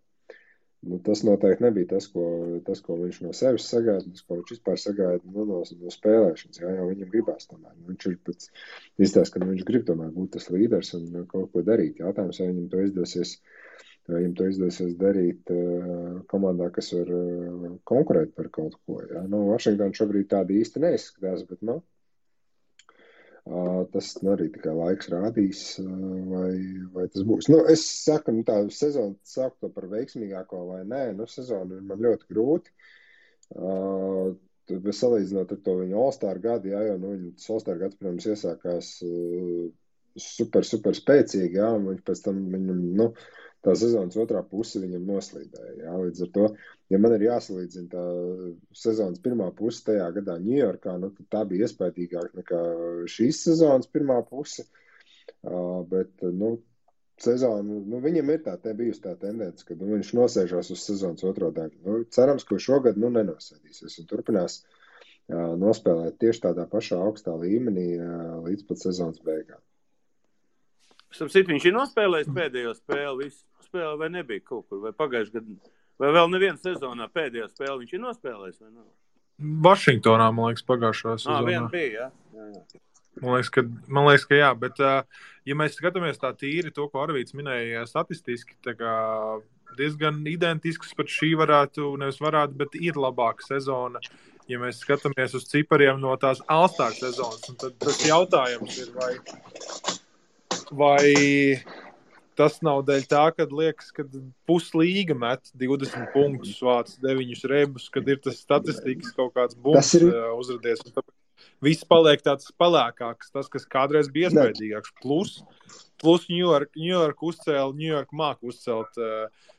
Tas noteikti nebija tas, ko viņš no sevis sagaida, tas, ko viņš vispār sagaida no spēlēšanas, jā, jo viņam gribās tomēr. Viņš ir pats izstāst, ka viņš grib tomēr būt tas līderis un kaut ko darīt. Jautājums, vai viņam to izdosies darīt komandā, kas var konkurēt par kaut ko. Jā. Washington šobrīd tādi īsti neizskatās, bet, tas arī tikai laiks rādīs, vai tas būs. Es saku, tā sezona saku to par veiksmīgāko vai nē. Sezona ir man ļoti grūti. Salīdzinot ar to viņa All-Star gadu, jā, jo viņas All-Star gads, protams, iesākās super spēcīgi, jā, un viņš pēc tam viņam, tā sezonas otrā puse viņam noslīdēja. Jā. Līdz ar to, ja man ir jāsalīdzina tā sezonas pirmā puse tajā gadā Ņujorkā, tad tā bija iespējīgāk nekā šīs sezonas pirmā puse. Bet, sezonu, viņam ir bijusi tā tendence, ka viņš nosēžās uz sezonas otro daļu. Cerams, ka šogad nenosēdīsies un turpinās nospēlēt tieši tādā pašā augstā līmenī līdz pat sezonas beigām. Viņš ir nospēlējis pēdējo spēli, visu spēli vai nebija kaut kur, vai pagājuši gadu, vai vēl neviena sezonā pēdējo spēli viņš ir nospēlējis, vai nav? Vašingtonā, man liekas, pagājušā sezonā. Viena bija, jā. Man liekas, ka jā, bet ja mēs skatāmies tā tīri to, ko Arvīds minēja statistiski, tā kā diezgan identisks pat šī bet ir labāka sezona, ja mēs skatāmies uz cipariem no tās All-Star sezonas, un tad tas jautājums ir, vai tas nav dēļ tā, kad liekas, ka puslīga met 20 punktus, vāc 9 rebus, kad ir tas statistikas kaut kāds bums uzradies. Un tāpēc viss paliek tāds pelēkāks, tas, kas kādreiz bija iespējīgāks. Plus New York māk uzcelt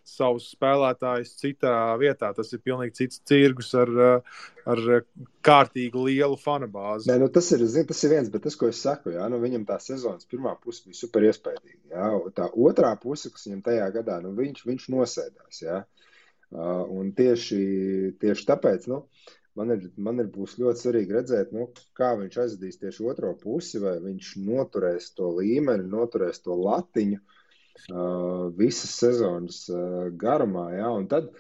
savus spēlētājus citā vietā. Tas ir pilnīgi cits cirgus ar kārtīgi lielu fanu bāzi. Nē, tas ir viens, bet tas, ko es saku, jā, viņam tā sezonas pirmā puse bija super iespējīga. Jā, tā otrā puse, kas viņam tajā gadā, viņš nosēdās. Jā. Un tieši tāpēc, man būs ļoti svarīgi redzēt, kā viņš aizvedīs tieši otro pusi, vai viņš noturēs to līmeni, noturēs to latiņu, visas sezonas garumā, jā, un tad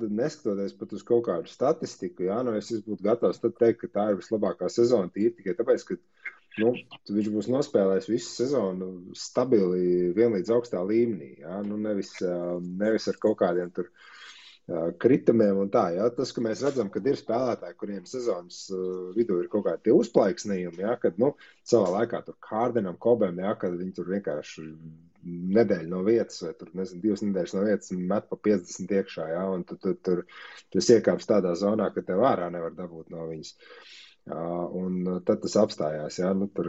neskatoties pat uz kaut kādu statistiku, jā, es būtu gatavs tad teikt, ka tā ir vislabākā sezona tīri tikai tāpēc, ka viņš būs nospēlējis visu sezonu stabili vienlīdz augstā līmenī, jā, nevis ar kaut kādiem tur kritumiem un tā, jā. Tas, ka mēs redzam, kad ir spēlētāji, kuriem sezonas vidū ir kaut kādi tie uzplaiksnījumi, jā, kad, savā laikā tur Hārdenam, Kobem, jā, kad viņi tur vienkārši nedēļu no vietas vai tur, 2 nedēļas no vietas met pa 50 iekšā, jā, un tur iekāps tādā zonā, ka tev ārā nevar dabūt no viņas. Un tad tas apstājās, jā, tur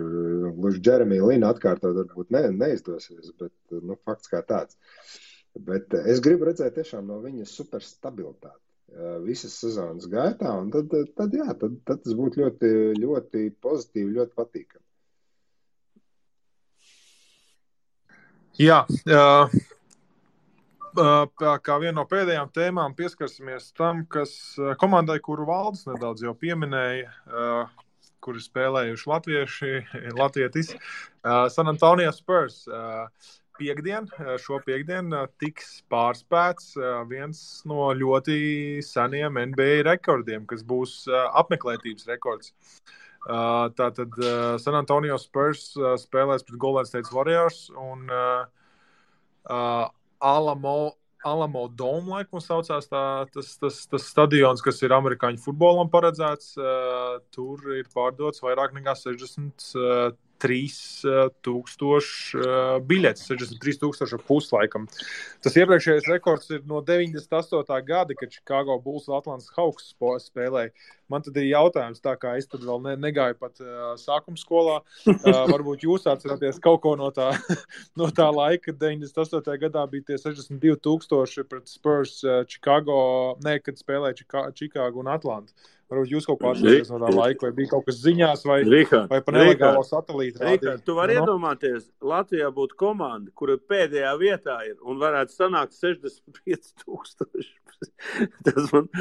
gluži Jeremija Lina atkārtot varbūt neizdosies, bet, fakts kā tāds. Bet es gribu redzēt tiešām no viņas super stabilitāti visas sezonas gaitā, un tad tas būtu ļoti, ļoti pozitīvi, ļoti patīkami. Jā, kā viena no pēdējām tēmām pieskarsimies tam, kas komandai, kuru Valdis nedaudz jau pieminēja, kuri spēlējuši latvietis, San Antonio Spurs. Šo piekdienu tiks pārspēts viens no ļoti seniem NBA rekordiem, kas būs apmeklētības rekords. Tātad San Antonio Spurs spēlēs pret Golden State Warriors un Alamo Dome, laikam saucās tas stadions, kas ir amerikāņu futbolam paredzēts. Tur ir pārdots vairāk nekā 63,000 biļetes, 63,000 puslaikam. Tas iepriekšējais rekords ir no 98. gada, kad Chicago Bulls un Atlantas Hawks spēlēja. Man tad ir jautājums, tā kā es tad vēl negāju pat sākuma skolā. Varbūt jūs atceraties kaut ko no tā laika, kad 98. gadā bija tie 62,000 pret Spurs kad spēlēja Chicago un Atlantu. Varbūt jūs kaut kā atceraties no tā laika, vai bija kaut kas ziņās, vai pa nelegālo satelītu rādīja. Tu vari iedomāties, Latvijā būtu komanda, kura pēdējā vietā ir un varētu sanākt 65,000. Tas man...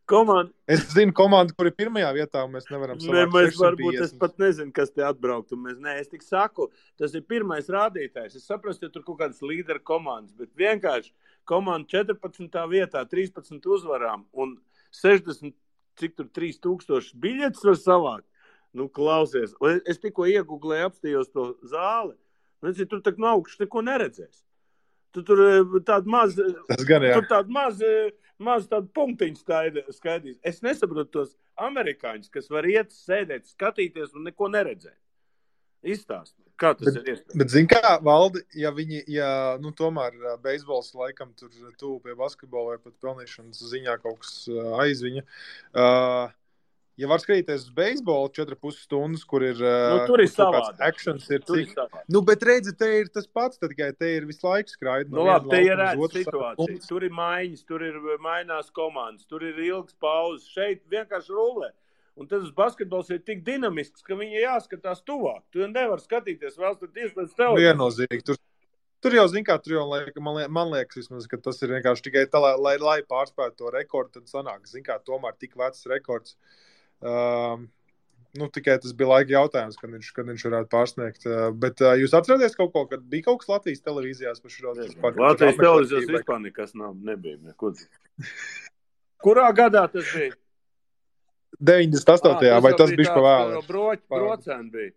Komanda... Es zinu komandu, kur ir pirmajā vietā, un mēs nevaram sanākt 650. Es pat nezinu, kas te atbraukt. Es tik saku, tas ir pirmais rādītājs. Es saprastu, ja tur kaut kādas līderu komandas, bet vienkārši komanda 14. vietā, 13 uzvarām un 60, cik tur 3,000 biļetes var savākt. Klausies. Es tikko iegooglēju, apstījos to zāli. Tur tak no augšas neko neredzēs. Tur tāda maz tādu punktiņu skaidrs. Es nesaprotu tos amerikāņus, kas var iet, sēdēt, skatīties un neko neredzēt. Izstāst, kā tas ir iespējams. Bet zin kā, Valdi, ja tomēr beisbols laikam tur tuvu pie basketbola vai pat pelnīšanas ziņā kaut kas aizviņa, ja var skatīties uz beisbolu 4,5 stundas, kur ir tur ir savādāk. Actions ir cik. Bet redzi, te ir tas pats, tad tikai te ir visu laiku skraidi. Labi, te ir situācija. Tur ir maiņas, tur ir mainās komandas, tur ir ilgas pauzes. Šeit vienkārši rulē. Un tas basketbols ir tik dinamisks, ka viņi jāskatās tuvāk. Tu nevar skatīties vēl tad iespēc tev. Viennozīmīgi. Tur jau, zin kā, man liekas vismaz, ka tas ir vienkārši tikai tā, lai pārspētu to rekordu, tad sanāk, zin kā, tomēr tik vecs rekords. Tikai tas bija laika jautājums, kad viņš varētu pārsniegt. Bet jūs atceraties kaut ko, kad bija kaut kas Latvijas televīzijās par šo? Latvijas televīzijās vispār nekas nebija. Neko. Kurā gadā tas bija? 98. Vai tas bija pa vēlu? Brocēni bija.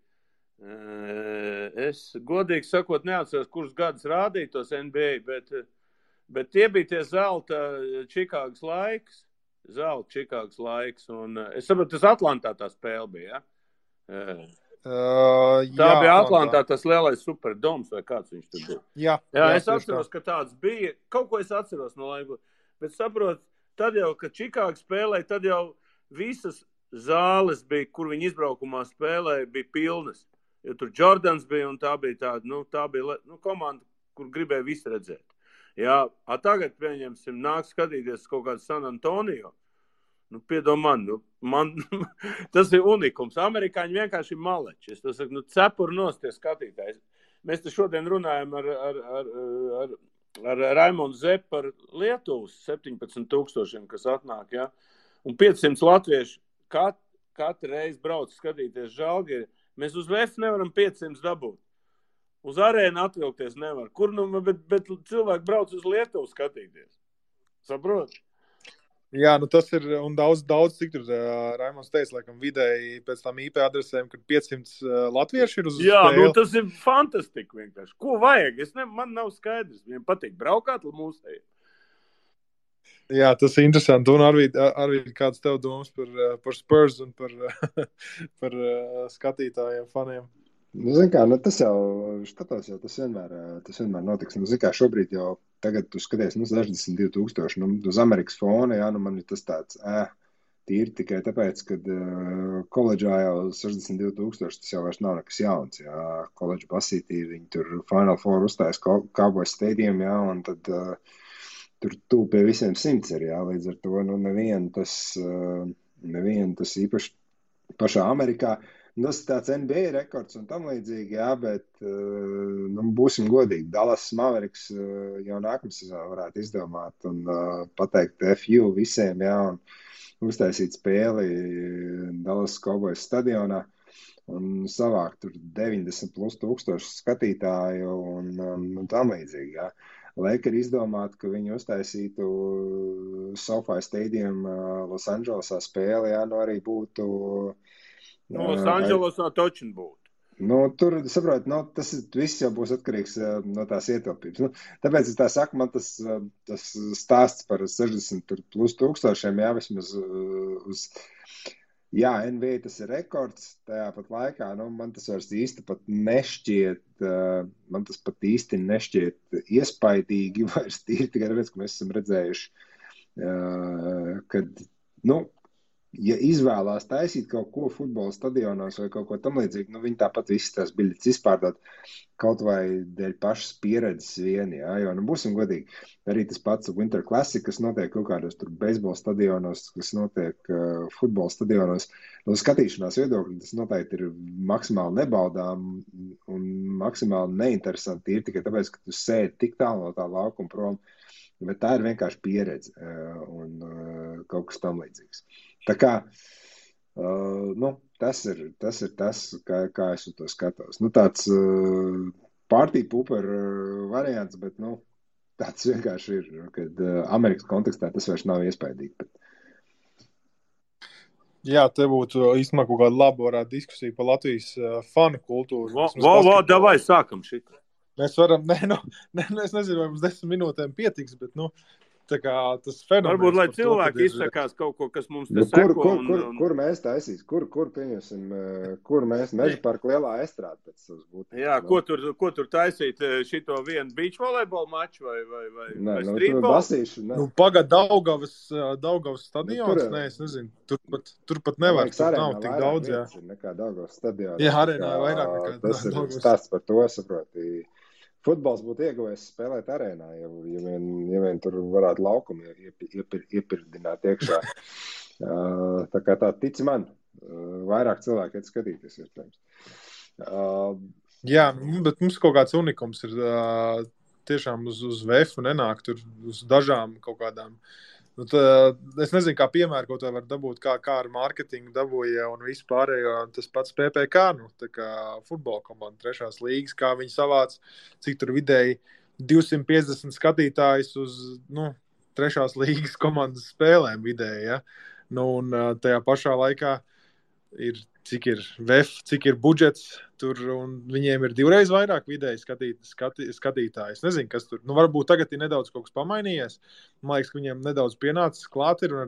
Es godīgi sakot neatceros, kurus gadus rādīja tos NBA, bet tie bija tie zelta Čikāgas laiks. Un es saprotu, tas Atlantā tā spēle bija, ja? Tā bija Atlantā tas lielais superdoms, vai kāds viņš tur bija. Jā, es atceros, ka tāds bija. Kaut ko es atceros no laika. Bet saprotu, tad jau, kad Čikāga spēlēja, tad jau visas zāles bija, kur viņi izbraukumā spēlēja, bija pilnas. Jo tur Jordans bija un tā bija tāda, komanda, kur gribēja visu redzēt. Jā, tagad, pieņemsim, nāk skatīties kaut kādu San Antonio. Piedomā man tas ir unikums. Amerikāņi vienkārši ir maleči. Es to saku, cepuri nosties skatītājs. Mēs te šodien runājam ar Raimondu Zepu par Lietuvas 17,000, kas atnāk, jā. Un 500 latvieši katru reizi brauc skatīties Žalgiri. Mēs uz VF nevaram 500 dabūt. Uz arēnu atvilkties nevar. Kur bet cilvēki brauc uz Lietuvu skatīties. Saprot? Jā, nu tas ir, un daudz, cik tur Raimonds teica, laikam vidēji pēc tām IP adresēm, kad 500 latvieši ir uz Jā, spēli. nu tas ir fantastika vienkārši. Ko vajag? Man nav skaidrs. Viņiem patīk braukāt mūsējiem. Jā, tas ir interesanti. Un arī kāds tev domas par Spurs un par skatītājiem, faniem? Nu, zin kā, nu tas jau tas vienmēr notiks. Nu, zin kā, šobrīd jau tagad tu skaties, 62,000, uz Amerikas fona, jā, man ir tas tāds, tīri tikai tāpēc, kad koledžā jau 62,000, tas jau vairs nav nekas jauns, jā, koledža basītī, viņi tur Final Four uzstājas Cowboys Stadium, jā, un tad tur tu pie visiem 100 ir, jā, līdz ar to, nevienu tas īpaši pašā Amerikā. Tas ir tāds NBA rekords un tam līdzīgi, jā, bet būsim godīgi. Dallas Mavericks jau nākamā sezonā varētu izdomāt un pateikt FU visiem, jā, un uztaisīt spēli Dallas Cowboys stadionā un savākt tur 90,000+ skatītāju un tam līdzīgi, jā. Lakers izdomāt, ka viņi uztaisītu SoFi Stadium Los Andželesā spēli, jā, arī būtu... Los Andželesā točin būtu. Tur, saprot, tas viss jau būs atkarīgs no tās ietilpības. Tāpēc es tā saku, man tas stāsts par 60,000+, jā, vismaz uz... Jā, NBA tas ir rekords, tajā pat laikā, man tas vairs īsti pat nešķiet, iespaidīgi, vairs tīri tikai tāpēc, ka mēs esam redzējuši, kad, ja izvēlās taisīt kaut ko futbola stadionos vai kaut ko tam līdzīgi, viņi tāpat visas tās biļetes izpārdot kaut vai dēļ pašas pieredzes vien, jā, jo, būsim godīgi, arī tas pats Winter Classic, kas notiek kaut kādos tur beisbola stadionos, kas notiek futbola stadionos, no skatīšanās viedokļa, tas noteikti ir maksimāli nebaudām un maksimāli neinteresanti, ir tikai tāpēc, ka tu sēdi tik tālu no tā laukuma prom, bet tā ir vienkārši pieredze un kaut kas tam līdzīgs. Tā kā, tas ir tas, kā es uz to skatos. Tāds party pooper variants, bet, tāds vienkārši ir, kad Amerikas kontekstā tas vairs nav iespaidīgi. Bet... Jā, te būtu īstenībā kaut kāda laba varētu diskusija par Latvijas fanu kultūru. Davai, sākam šitā. Mēs varam, es nezinu, vai mums 10 minūtēm pietiks, bet, tā kā tas fenomens... Varbūt, lai cilvēki izsakās kaut ko, kas mums te seko. Kur mēs taisīs? Kur pieņemsim? Kur mēs Meža parka lielā estrāde pēc savas būtības? Jā, ko tur taisīt? Šito vienu beach volejbola maču vai streetball? Basīšu, Pagad Daugavas stadions? Nē, es nezinu. Tur pat nevar. Tur nav tik daudz, jā. Nekā Daugavas stadions. Jā, arēnā vairāk nekā Daugavas. Tas ir stāsts par to, saproti. Futbols būtu ieguvējis spēlēt arēnā, ja vien tur varētu laukumu iepirdināt iekšā. Tā kā tā tic man, vairāk cilvēki iet skatīties, iespējams. Jā, bet mums kaut kāds unikums ir tiešām uz VF nenāk tur uz dažām kaut kādām. Es nezinu, kā piemēru kaut vai var dabūt, kā ar mārketingu dabūja un vispārējo, tas pats PPK, tā kā futbola komanda 3. līgas, kā viņi savāc, cik tur vidēji 250 skatītājus uz, 3. līgas komandas spēlēm vidēji, ja. Un tajā pašā laikā ir, cik ir VF, cik ir budžets tur, un viņiem ir 2 reiz vairāk vidēji skatītāji. Es nezinu, kas tur. Varbūt tagad ir nedaudz kaut kas pamainījies. Man liekas, ka viņiem nedaudz pienācis klāt ir, un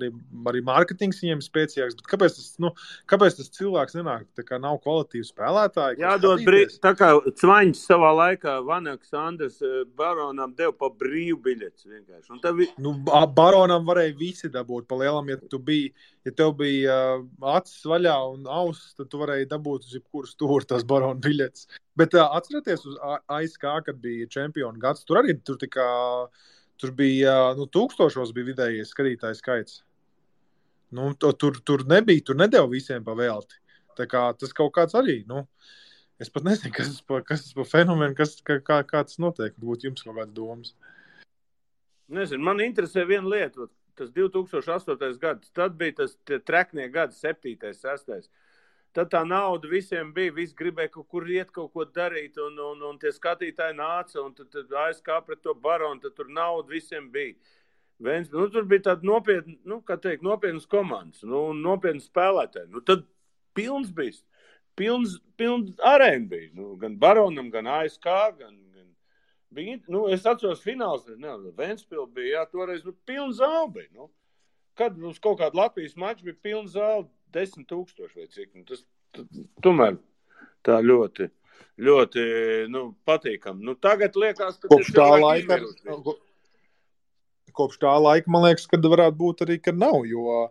arī mārketings viņiem spēcīgāks. Bet kāpēc tas cilvēks nenāk? Tā kā nav kvalitīvi spēlētāji. Jādod tā kā Cvaņš savā laikā Vanaks Andres Baronam deva pa brīvu biļetes vienkārši. Baronam varēja visi dabūt pa lielam, ja tev bija acis vaļā un auss, tad tu varēji dabūt uz jebkuru stūri tās Barona biļetes. Bet atcerieties uz ASK, kad bija čempionu gads, tur arī tur bija, 1000 bija vidējais skatītāju skaits. Tur nedeva visiem pa velti. Tā kā tas kaut kāds arī, es pat nezinu, kas tas pa fenomenu, kā tas notiek. Varbūt jums kaut kāds domas. Nezinu, man interesē viena lieta, tas 2008. gads, tad bija tas treknie gadi, 7., 6. tad tā nauda visiem bija, visi gribēja kaut kur iet, kaut ko darīt, un tie skatītāji nāca, un tad ASK pret to Baronu, tad tur nauda visiem bija. Tur bija tāda nopietnas komandas, nopietnas spēlētāji. Tad pilns bija, pilns arēna bija, gan Baronam, gan ASK, gan bija, es atceros fināls, Ventspils bija, toreiz, pilns zāli bija, Kad mums kaut kāda Latvijas mača bija pilna zāle 10,000 vai cik. Tas tomēr tā ļoti, ļoti patīkami. Tagad liekas, ka kopš tā laika, man liekas, kad varētu būt arī, kad nav, jo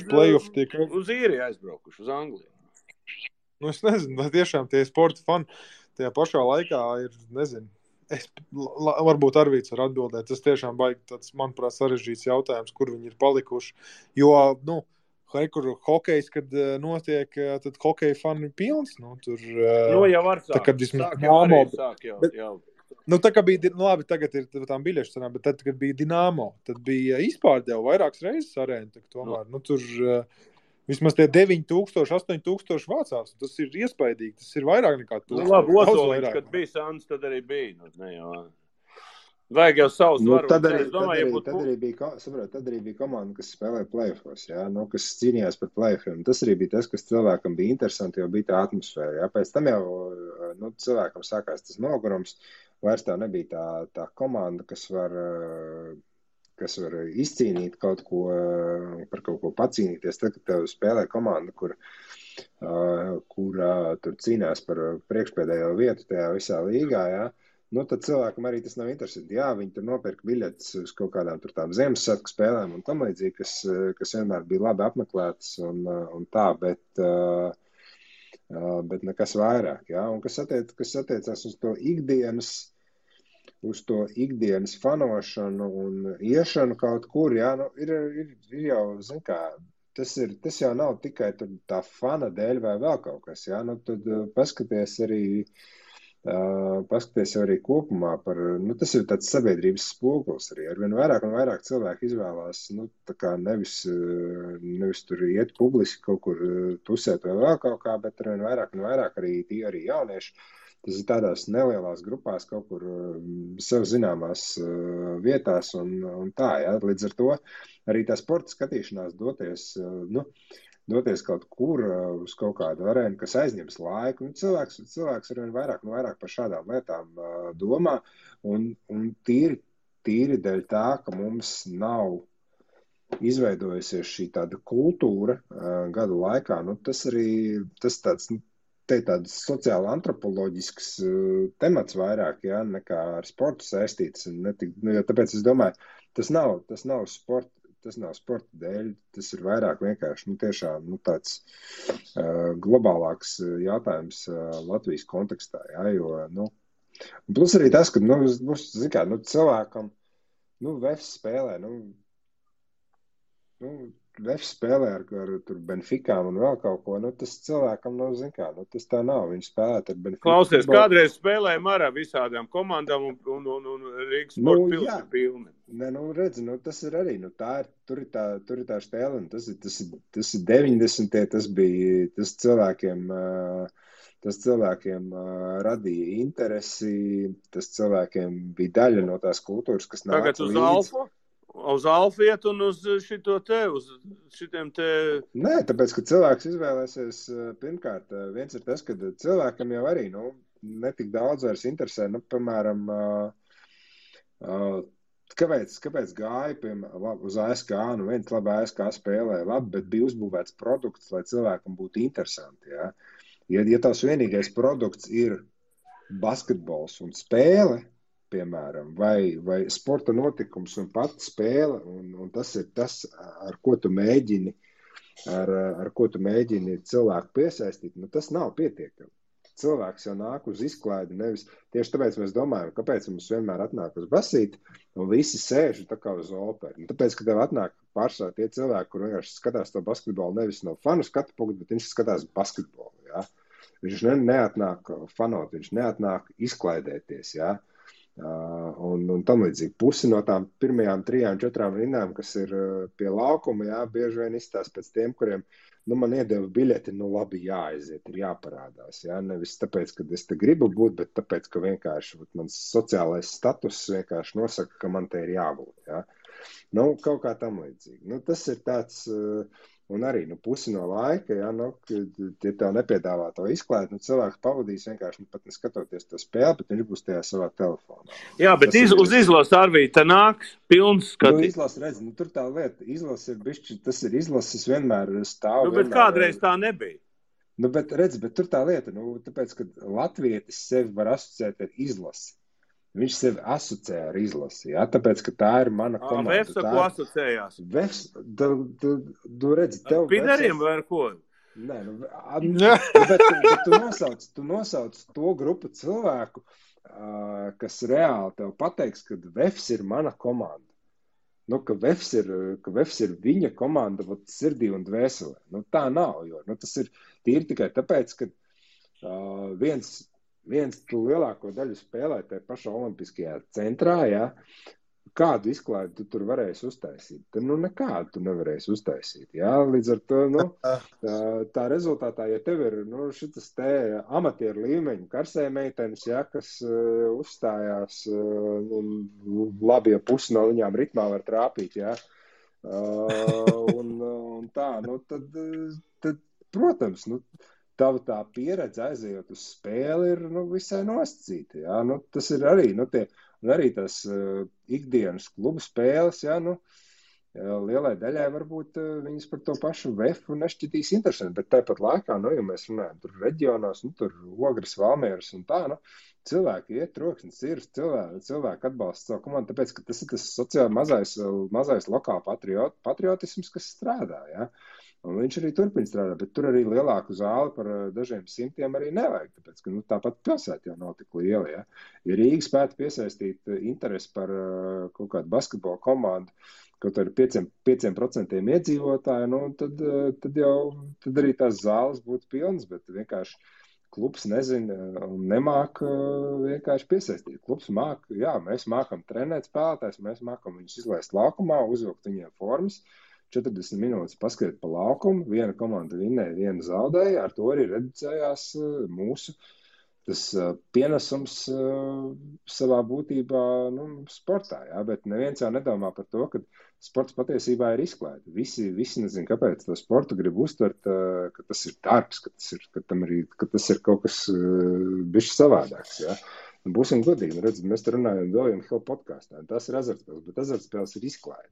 play-off tiek uz īriju aizbraukuši, uz Angliju. Es nezinu, vai tiešām tie sporta fani tajā pašā laikā ir, nezinu. Varbūt Arvīts var atbildēt. Tas tiešām baigi tāds, manuprāt, sarežģīts jautājums, kur viņi ir palikuši. Jo, kur hokejs, kad notiek, tad hokeja fani ir pilns. Tur, jau var sāk. Tā kā bija, labi, tagad ir tām biļešu cenām, bet tad, kad bija Dinamo, tad bija izpārdeva vairākas reizes arēna. Tomēr, tur vismaz tie 9,000, 8,000 vācās. Tas ir iespaidīgi. Tas ir vairāk nekā 1000. Labi, Ozoliņš, kad bija Sāns, tad arī bija. Vajag jau savus varu. Tad arī bija komanda, kas spēlēja play-offos, kas cīnījās par play-offiem. Tas arī bija tas, kas cilvēkam bija interesanti, jo bija tā atmosfēra. Pēc tam jau cilvēkam sākās tas nogurums. Vairs tā nebija tā komanda, kas var izcīnīt kaut ko, par kaut ko pacīnīties. Tad, kad tev spēlē komanda, kur tur cīnās par priekšpēdējo vietu tajā visā līgā, tad cilvēkam arī tas nav interesanti. Viņi tur nopirka biļetes uz kaut kādām tur tām Ziemassvētku spēlēm un tam līdzīgi, kas vienmēr bija labi apmeklētas un tā, bet nekas vairāk. Un kas attiecās uz to ikdienas fanošanu un iešanu kaut kur, ir jau, zin kā, tas jau nav tikai tā fana dēļ vai vēl kaut kas, tad paskaties arī kopumā par, tas ir tāds sabiedrības spogulis arī, arvien vairāk un vairāk cilvēki izvēlās, tā kā nevis tur iet publiski kaut kur tusēt vai vēl kaut kā, bet arvien vairāk un vairāk arī jaunieši. Tas ir tādās nelielās grupās kaut kur sev zināmās vietās un tā, Līdz ar to arī tā sporta skatīšanās doties kaut kur uz kaut kādu arēnu, kas aizņems laiku. Cilvēks arvien vairāk un vairāk par šādām lietām domā un tīri dēļ tā, ka mums nav izveidojusies šī tāda kultūra gadu laikā. Tas tāds... Te ir tāds sociāli antropoloģisks temats vairāk, nekā ar sportu saistīts. Tāpēc es domāju, tas nav sporta dēļ, tas ir vairāk vienkārši tiešām tāds globālāks jautājums Latvijas kontekstā. Plus arī tas, ka cilvēkam VF spēlē, VF spēlē ar tur Benficām un vēl kaut ko, tas cilvēkam tas tā nav, viņš spēlēt ar Benfiku. Klausies, kādreiz spēlējam ar visādām komandām un Rīgas sporta pils ir pilni. Redzi, tas ir arī, tur ir tā stēle, un tas ir 90. Tas cilvēkiem radīja interesi, tas cilvēkiem bija daļa no tās kultūras, kas nāca līdz. Tagad uz Alfu? Uz Alfiet un uz šitiem te... Nē, tāpēc, ka cilvēks izvēlēsies, pirmkārt, viens ir tas, ka cilvēkam jau arī, netik daudz vairs interesē, piemēram, kāpēc gāja, uz ASK, viens labi ASK spēlē, labi, bet bija uzbūvēts produkts, lai cilvēkam būtu interesanti, Ja tavs vienīgais produkts ir basketbols un spēle, piemēram, vai sporta notikums un pati spēle, un tas ir tas, ar ko tu mēģini cilvēku piesaistīt, tas nav pietiekami. Cilvēks jau nāk uz izklaidi, nevis tieši tāpēc mēs domājam, kāpēc mums vienmēr atnāk uz basīti, un visi sēž tā kā uz operu. Tāpēc, ka tev atnāk pārsvarā tie cilvēki, kur vienkārši skatās to basketbolu nevis no fanu skatu punktu, bet viņš skatās basketbolu, Viņš neatnāk fanot, viņš neatnāk izklaidēties, Un tam līdzīgi. Pusi no tām pirmajām 3-4 rindām, kas ir pie laukuma, jā, bieži vien izstās pēc tiem, kuriem, man iedeva biļeti, labi jāaiziet, ir jāparādās, jā, nevis tāpēc, ka es te gribu būt, bet tāpēc, ka vienkārši mans sociālais status vienkārši nosaka, ka man te ir jābūt, jā. Kaut kā tam līdzīgi. Tas ir tāds, un arī, pusi no laika, jā, ja tev nepiedāvā to izklaidi, cilvēks pavadīs vienkārši pat neskatoties to spēli, bet viņš būs tajā savā telefonā. Jā, bet uz izlases Arvī te nāk pilns skatīt. Izlases, redz, tur tā lieta, izlases ir bišķi, tas ir izlases vienmēr stāv. Bet kādreiz tā nebija. Bet redz, bet tur tā lieta, tāpēc, ka latvietis sevi var asociēt ar izlasi. Viņš sevi asociē ar izlasi, jā, tāpēc, ka tā ir mana komanda. Vefs ar ko asociējās? Vefs, tu redzi, tev... Pideriem vai ar ko? Nē, bet tu nosauc to grupu cilvēku, kas reāli tev pateiks, ka Vefs ir mana komanda. Ka Vefs ir viņa komanda sirdī un dvēselē. Tā nav, jo tas ir tīri tikai tāpēc, ka viens tu lielāko daļu spēlē tajā pašā olimpiskajā centrā, jā, kādu izklaidi tu tur varēsi uztaisīt? Tad, nekādu tu nevarēsi uztaisīt, jā, līdz ar to, tā rezultātā, ja tev ir, šitas te amatieru līmeņu karsē meitenes, jā, kas uzstājās, labi, ja pusi no viņām ritmā var trāpīt, jā, un tā, tad, protams, tava tā pieredze aizejot uz spēli ir visai nosacīta. Jā? Tas ir arī, arī tās ikdienas klubu spēles, jā, lielai daļai varbūt viņas par to pašu vefu nešķitīs interesanti, bet tāpat laikā, ja mēs runājam tur reģionos, tur Ogres, Valmieras un tā, cilvēki iet troksnis, ir cilvēki atbalsta savu komandu, tāpēc, ka tas ir tas sociāli mazais lokāla patriotisms, kas strādā, jā. Un viņš arī turpina strādāt, bet tur arī lielāku zāli par dažiem simtiem arī nevajag, tāpēc, ka tāpat pilsēta jau nav tik liela, ja. Ja Rīga spētu piesaistīt interesi par kaut kādu basketbola komandu, kaut ar 5% iedzīvotāju, tad arī tās zāles būtu pilnas, bet vienkārši klubs nezina un nemāk vienkārši piesaistīt. Klubs māk, jā, mēs mākam trenēt spēlētājs, mēs mākam viņus izlaist laukumā, uzvilkt viņiem formas, 40 minūtes paskriet pa laukumu, viena komanda vinnēja, viena zaudēja, ar to arī reducējās mūsu tas pienesums savā būtībā sportā, jā, bet neviens jau nedomā par to, ka sports patiesībā ir izklaide. Visi nezin, kāpēc to sportu grib uztvert, ka tas ir darbs, ka tas ir kaut kas bišķi savādāks, jā. Būsim godīgi, redz, mēs te runājam William Hill podkāstā, tas ir azartspēles, bet azartspēles ir izklaide.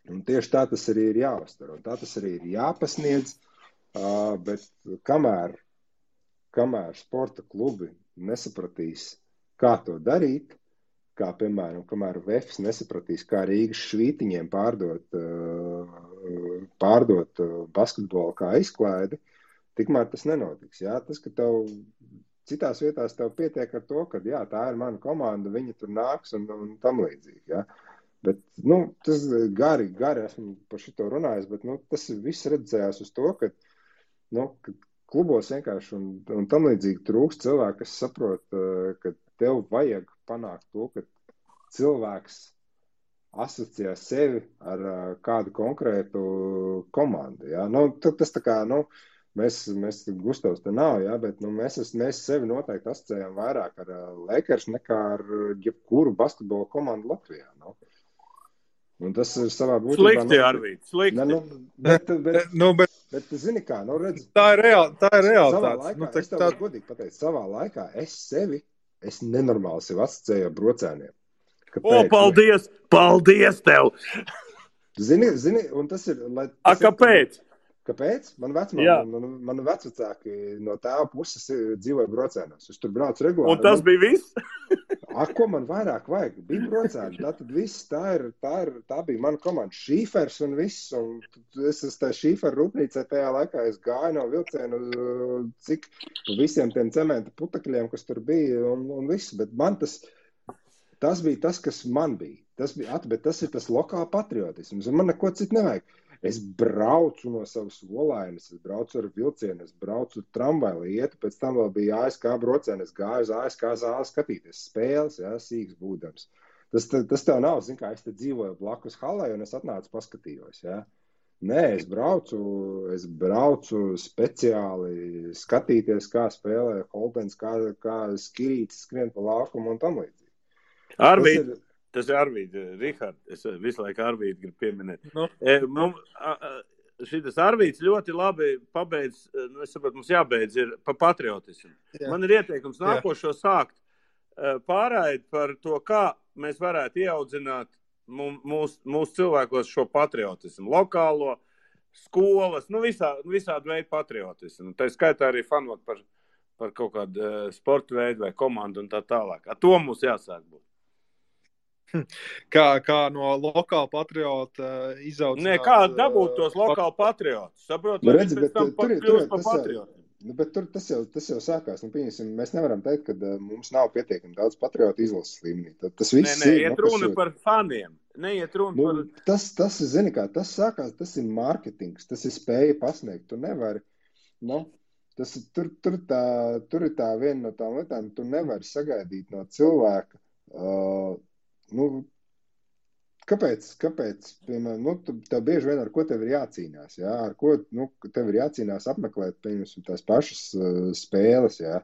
Un tieši tā tas arī ir jāuztver, un tā tas arī ir jāpasniedz, bet kamēr sporta klubi nesapratīs, kā to darīt, kā, piemēram, kamēr Vefs nesapratīs, kā Rīgas Švītiņiem pārdot basketbolu kā izklaidi, tikmēr tas nenotiks. Jā? Tas, ka tev citās vietās tev pietiek ar to, ka jā, tā ir mana komanda, viņi tur nāks un tam līdzīgi, jā. Bet, tas gari esmu par šito runājis, bet, tas viss redzējās uz to, ka klubos vienkārši un tam līdzīgi trūkst cilvēki, kas saprot, ka tev vajag panākt to, ka cilvēks asociē sevi ar kādu konkrētu komandu, jā. Tas tā kā, mēs Gustavs te nav, jā, bet, mēs sevi noteikti asociējam vairāk ar Lakers nekā ar jebkuru basketbola komandu Latvijā, Un tas ir savā būtībā... Slikti, Arvīd, slikti. Bet zini kā, redz... Tā ir realitāte. Es tev varu godīgi pateikt, savā laikā es nenormāli sev asociēju ar brocēniem. Kāpēc? Paldies tev! Zini, un tas ir... Kāpēc? Kāpēc? Man vecvecāki no tēva puses dzīvoja brocēnos. Es tur braucu regulāri. Un tas bija viss? Ko man vairāk vajag? Bija brocēni. Tātad viss, tā bija mana komanda. Šīfers un viss. Un es tā šīferu rūpnīcē tajā laikā es gāju no vilcienu cik visiem tiem cementa putekļiem, kas tur bija un viss. Bet man tas bija tas, kas man bija. Bet tas ir tas lokāla patriotisms. Un man neko citu nevajag. Es braucu no savas olainas, es braucu ar vilcienu, es braucu tramvaju, ietu, pēc tam vēl bija ASK brocēni, es gāju uz ASK zāli skatīties spēles, jā, sīks būdams. Tas tev nav, zin kā, es te dzīvoju blakus halai un es atnācu paskatījos, jā. Nē, es braucu speciāli skatīties, kā spēlē Holdens, kā Skirītis skrien pa laukumu un tam līdzīgi. Tas ir Arvīd, Rihard, es visu laiku Arvīd gribu pieminēt. Šitas Arvīds ļoti labi pabeidz, es saprotu, mums jābeidz, ir pa patriotismu. Jā. Man ir ieteikums nākošo sākt pārraidi par to, kā mēs varētu ieaudzināt mūsu cilvēkos šo patriotismu, lokālo, skolas, visādi veidu patriotismu. Tā skaitā arī fanot par kaut kādu sportu veidu vai komandu un tā tālāk. Ar to mums jāsāk būt. Kā no lokāla patriota izaudzināt... Nē, kā dabūt tos lokāli patriotus? Saprot, lai viņi pēc tam kļūst par patriotu. Bet tas jau sākās. Mēs nevaram teikt, ka mums nav pietiekami daudz patriotu izlases līmenī. Tas viss iet runa par faniem. Neiet runa par... Tas, zini kā, tas sākās, tas ir mārketings, tas ir spēja pasniegt. Tu nevari, tur ir tā viena no tām lietām, tu nevari sagaidīt no cilvēka, kāpēc, piemēram, tev bieži vien ar ko tev ir jācīnās, jā, ar ko, tev ir jācīnās apmeklēt, piemēram, tās pašas spēles, jā.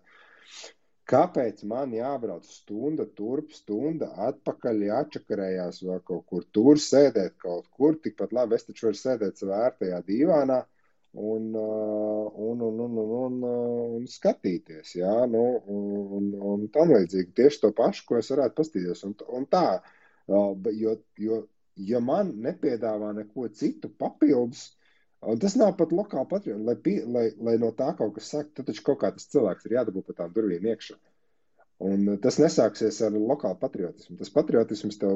Kāpēc man jābrauc stunda turp, stunda atpakaļ, jāčakarējās vēl kaut kur, tur sēdēt kaut kur, tikpat labi, es taču varu sēdēt savā ērtajā dīvānā un skatīties, jā, un tam līdzīgi tieši to pašu, ko es varētu pastīties, un tā, ja man nepiedāvā neko citu papildus, un tas nav pat lokāli patriotu, lai no tā kaut kas sāk, tad taču kaut kā tas cilvēks ir jādabū pa tām durvīm iekšā. Un tas nesāksies ar lokālu patriotismu. Tas patriotisms tev,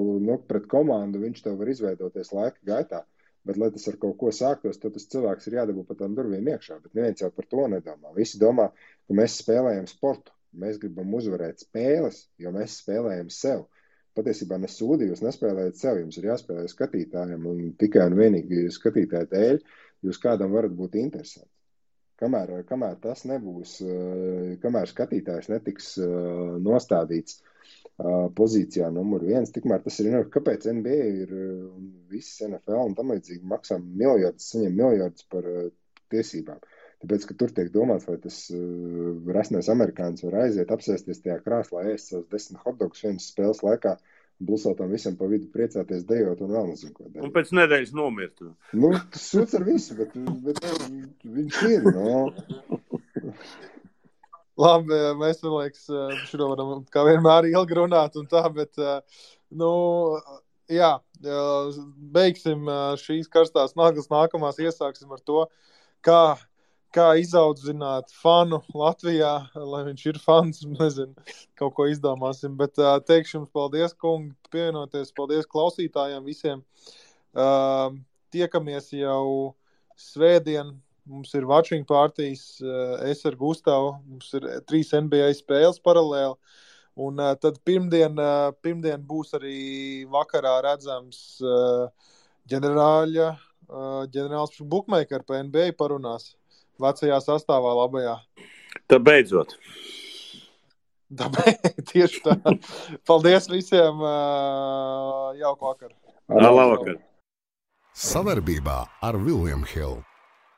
pret komandu, viņš tev var izveidoties laika gaitā, bet, lai tas ar kaut ko sāktos, tad tas cilvēks ir jādabū pa tām durvīm iekšā, bet neviens jau par to nedomā. Visi domā, ka mēs spēlējam sportu, mēs gribam uzvarēt spēles, jo mēs spēlējam sev. Patiesībā nesūdi, jūs nespēlējat sev, jums ir jāspēlē skatītājiem, un tikai un vienīgi skatītāju dēļ jūs kādam varat būt interesanti. Kamēr tas nebūs, kamēr skatītājs netiks nostādīts pozīcijā numur 1, tikmēr tas ir, kāpēc NBA ir viss NFL un tam līdzīgi maksā miljardus, saņem miljardus par tiesībām. Tāpēc, ka tur tiek domāts, vai tas resnais amerikānis var aiziet, apsēsties tajā krāslā, ēst savus 10 hotdogus vienas spēles laikā, blusautam visam pa vidu priecāties, dejot un vēl nezinu, ko dejot. Un pēc nedēļas nomirt. Tas sūds ar visu, bet viņš ir, Labi, mēs, man liekas, šito varam kā vienmēr ilgi runāt un tā, bet, jā, beigsim šīs karstās naglas, nākamās iesāksim ar to, kā izaudzināt fanu Latvijā, lai viņš ir fans, nezinu, kaut ko izdomāsim, bet teikšu jums paldies, kungi, pievienoties, paldies klausītājiem visiem. Tiekamies jau svētdien, mums ir watching partijas, es ar Gustavu, mums ir 3 NBA spēles paralēli, un tad pirmdien būs arī vakarā redzams ģenerāls bookmaker pa NBA parunās. Vecajā sastāvā labajā. Tā beidzot. Tieši tā. Paldies visiem. Jauku vakaru. Labvakar. Savarbībā ar William Hill.